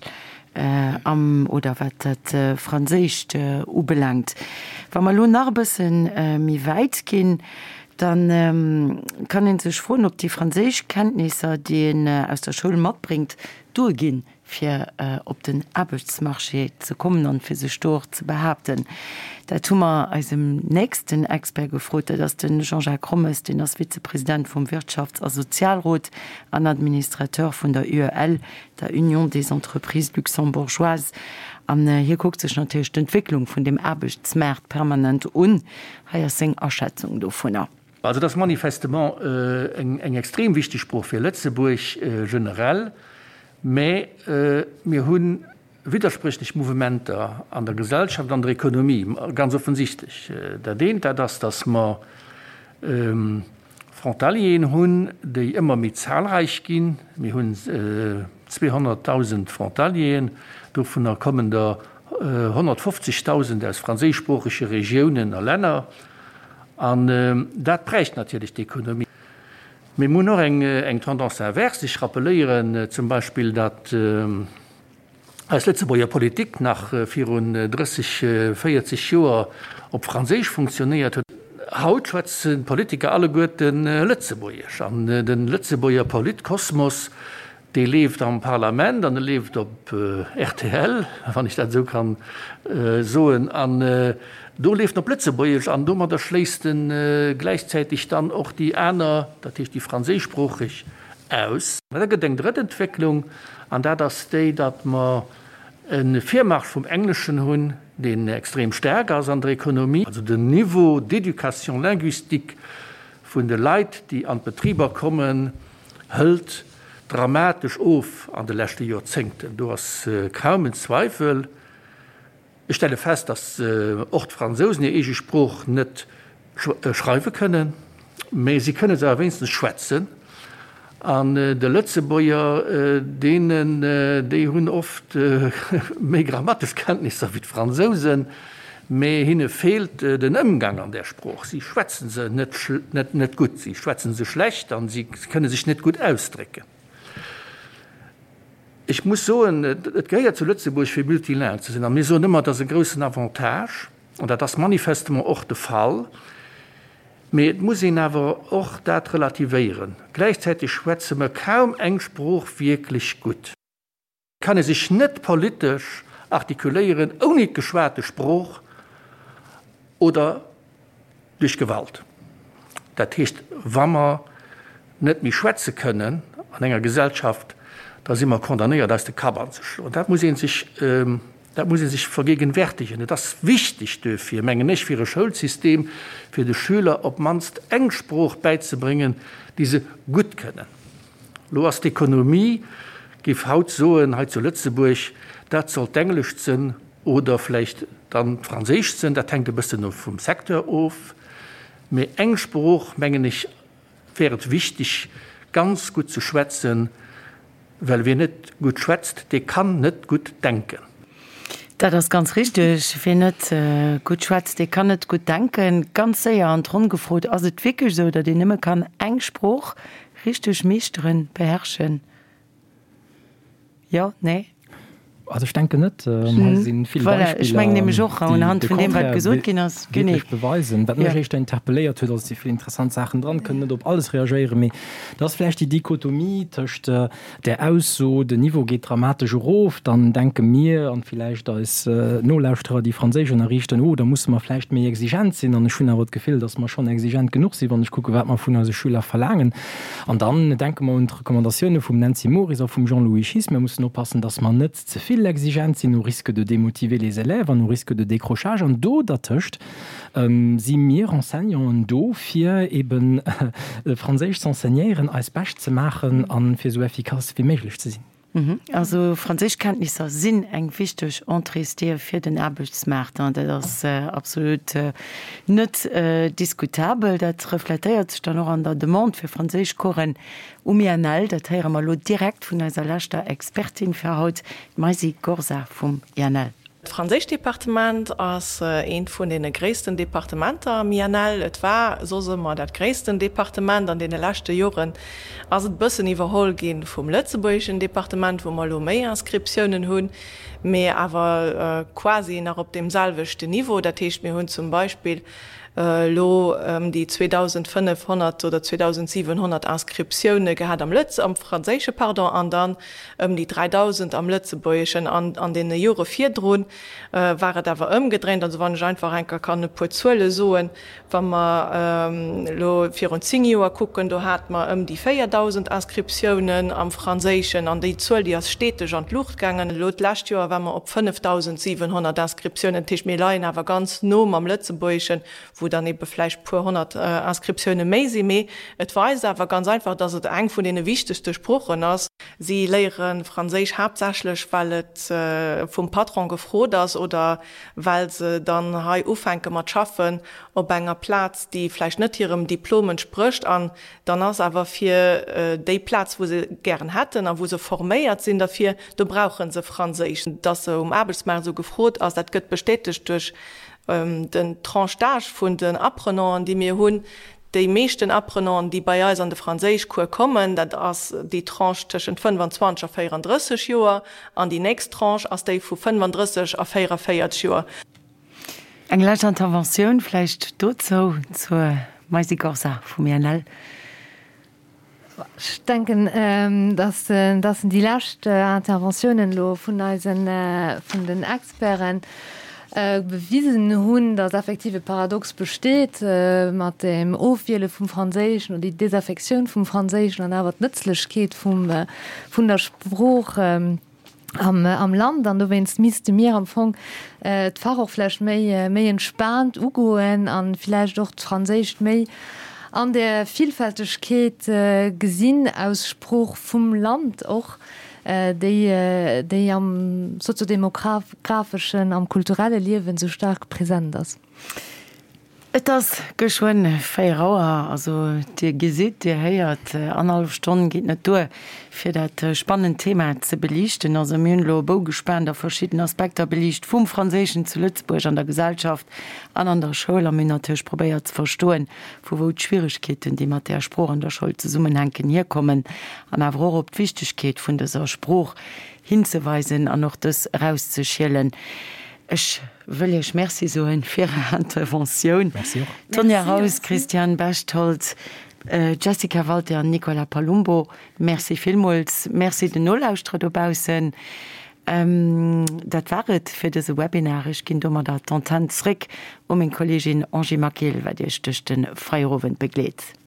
am oder wat dat Franséischt ubelaangt. Wa mer elo nach e bësse méi wäit ginn, da kann ee sech froen, ob déi franséisch Kenntnisser, déi een aus der Schoul matbréngt, duerginn, fir op den Aarbechtsmarché ze kommen an fir sech do och ze behaapten. Dat hu mer eisem nächsten Expert gefrot, dat ass de Jean-Jacques Rommes, deen ass Vizepresident vum Wirtschafts a Sozialrot an Administrateur vun der UEL, der Union des Entreprises Luxembourgeoises. An hie kuckt sech natierlech d'Entwécklung vun dem Aarbechtsmaart permanent un. Hei ass seng Aschätzung dovunner. Also et ass manifestement eng extrem wichteg Sprooch fir Lëtzebuerg generell, mä mir hu widderspréchlech Mouvementer an der Gesellschaft, an der Ekonomie, ganz offensichtlech. Dat eent, dat ass, datt mer Frontalieren hunn, déi ëmmer méi zahlreich ginn. Mir hunn 200.000 Frontalieren, dovunner kommen der 150.000 aus franséischsproochege Regiounen a Länner. An dat prägt natierlech d'Ekonomie. Mee mir hunn och eng Tendance inverse. Ech rappeléieren zum Beispill, datt eis Lëtzebuerger Politik nach virun 30, 40 Joer op Franséisch funktionéiert huet. Haut schwätzen d'Politiker alleguerte Lëtzebuergesch an de Lëtzebuerger Politkosmos, dee leeft am Parlament an e leeft op rtl, wann ech dat esou kann soen, an do leeft en op Lëtzebuergesch an domadder schléisst e gläichzäiteg dann och déi aner, dat heescht déi franséischsproocheg, aus. Da gëtt eng drëtt Entwécklung, an dat ass déi, datt mer e Virmarsch vum Engleschen hunn, deen extrem staark ass an der Ekonomie. Also den Niveau d'éducation linguistique vun de Leit, déi an d'Betriber kommen, hëlt dramatesch of an de leschte Joerzéngten. Do ass kaum en Zweifel. Ech stelle fest, datt och d'Fransousen hir eege Sprooch net schreiwe kënnen, mä si kënne se awer wéinstens schwätzen. An de Lëtzebuerger, deenen, déi hunn oft méi grammatesch Kenntnisser wéi d'Fransousen, mä hinne feelt den Ëmgang an där Sprooch. Si schwätze se net net gutt, si schwätze se schlecht a si kënne sech net gutt ausdrécken. Ech muss soen, et gehéiert zu Lëtzebuerg fir multilingue ze sinn a mir soen ëmmer, et ass e groussen Avantage an dat ass manifestement och de Fall. Mee et muss een awer och dat relativéieren, gläichzäiteg schwätze mer kaum eng Sprooch wierklech gutt. Kann ee sech net politesch artikuléieren ouni d'geschwate Sprooch oder duerch Gewalt. Dat heescht, wa mer net méi schwätze kënnen an enger Gesellschaft, da si mer condamnéiert eis de Kapp anzeschloen. Dat muss ee sech, dat muss ee sech vergegenwärtigen. Et ass wichteg duerfir, mengen ech, fir e Schoulsystem, fir de Schüler op d'mannst eng Sprooch bäizebréngen, déi se gutt kënnen. Lo ass d'Ekonomie, géif haut soen, hei zu Lëtzebuerg, dat soll d'Englescht sënn oder vläicht dann d'Franséischt sënn, dat hänkt e bëssen vum Secteur of. Mee eng Sprooch, mengen ech, wär et wichteg ganz gutt ze schwätzen, well wien net gutt schwätzt, dee kann net gutt denken. Dat ass ganz richteg. Wien net gutt schwätzt, dee kann net gutt denken. Ganz séier an d'Ronn gefrot, Ass et wierklech esou, datt een nëmme kann eng Sprooch richteg meeschteren, beherrschen? Jo? Nee? Also ech denken net. Hei si vill Voilà, ech mengen nämlech och, unhand vun deem, wat gesot ginn ass. Genee. Wierklech beweisen. Wat mech éischter interpelléiert huet, also et si vill interessant Saachen dran, kënnen net op alles reagéieren, mee dat ass vläicht déi Dichotomie tëscht där Ausso, den Niveau geet dramatesch erof, dann denke mir an villäicht eis Nolauschterer, déi Franséisch ënnerriichten, oh, da musse mer vläicht méi exigent sinn. An ech hunn awer d'Gefill, datt mer schonn exigent genuch sinn, wann ech kucke wat mer vun eise Schüler verlaangen. An dann denke mer un d'Recommandatioune vum Nancy Moris a vum Jean-Louis Schiess, Mir mussen oppassen, datt mer net ze vill exigent sinn, au risque de démotiver les élèves an au risque de décrochage. An do dertëscht si mir Enseignanten do, fir eben Franséisch z'enseignéieren, eist Bescht ze maachen a fir esou effikass wéi méiglech ze sinn. Also Franséischkenntnisser sinn eng wichteg Entréesdier fir den Aarbechtsmaart, dat ass absolut net diskutabel. Dat refletéiert sech dann och an der Demande fir Franséischcoursen um INL. Dat héiere mer elo direkt vun eiser leschter Expertin fir haut, d'Maisy Gorsa vum INL. D'Franséischdepartement ass eent vun deene gréissten Departementer am INL. Et war soss ëmmer dat gréissten Departement. An deene leschte Joren ass et e bëssen iwwerholl gi vum lëtzebuergeschen Departement, wou mer elo méi Inscriptiounen hunn, mee awer quasi nach op deem selwechten Niveau. Dat heescht, mir hunn zum Beispill elo ëm déi 2.500 oder 2.700 Inscriptioune gehat am Lëtz-, am Franséische, pardon, an dann ëm déi 3.000 am Lëtzebuergeschen. An an deene Jore virdru war et awer ëmgedréint. Also wann ech einfach eng Kéier kann e puer Zuele soen, Wa mer elo virun zéng Joer kucken, do hate mer ëm déi 4.000 Inscriptiounen am Franséischen an déi Zuel, déi ass steteg an d'Luucht gaangen. Elo d'lescht Joer ware mer op 5.700 Inscriptiounen. Dat heescht, mir leien awer ganz no mam Lëtzebuergeschen, wou. wou dann ebe vläicht puer 100 Inscriptioune méi sinn. Mee et weist awer ganz einfach, dass et eng vun deene wichtegste Sproochen ass. Si léiere Franséisch haaptsächlech, well et vum Patron gefrot ass oder well se dann hei ufänke mat schaffen op enger Plaz, déi vläicht net hirem Diplom entsprécht. An dann ass awer fir déi Plaz, wou se gären hätten a wou se forméiert sinn derfir, do brauche se Franséisch. Dass se um Aarbechtsmaart esou gefrot ass, dat gëtt bestätegt duerch den d'Tranche d'âge vun den Apprenanten, déi mir hunn. Déi meeschten Apprenanten, déi bei eis an de Franséischcours kommen, dat ass déi Tranche tëschent 25 a 34 Joer, an déi nächst Tranche ass déi vu 35 a 44 Joer. Eng lescht Interventioun vläicht dozou, zur Maisy Gorsa vum INL. Ech denken, dass déi lescht Interventiounen elo vun eisen, vun den Experten bewisen hunn, dass effektiv e Paradox besteet mat dem Ofwiele vum Franséischen oder déi Desaffektioun vum Franséischen an awer d'Nëtzlechkeet vum, vun der Sprooch. am Land an dowéinst misste mir am Fong d'Fach och vläicht méi méi entspaant ugoen an vläicht och d'Franséischt méi an der Villfältegkeet gesinn aus Sprooch vum Land och, déi déi am soziodemographeschen, am kulturelle Liewen esou staark present ass. Et ass geschwënn 4 Auer, also Dir gesitt, Dir héiert, annerhallef Stonn geet net duer, fir dat spannend Thema ze beliichten. Also mir hunn elo e Bou gespaant a verschidden Aspekter beliicht vum Franséischen zu Lëtzebuerg an der Gesellschaft an an der Schoul a mir hunn natierlech probéiert ze verstoen, vu wou d'Schwieregkeeten, déi mat där Sprooch an der Schoul zesummenhänken, hierkommen an awer och op d'Wichtegkeet vun dëser Sprooch hinzeweisen an och dës erauszeschielen. Ech wëll Iech Merci soen fir Är Interventioun. Merci och. Tonja Raus, Christiane Bechtold, Jessica Walter an Nicola Palumbo, Merci villmools. Merci den Nolauschterer dobaussen. Dat war et fir dëse Webinar. Ech ginn domadder d'Antenn zréck u meng Kolleegin Angie Maquil, wat Iech duerch de Feierowend begleet.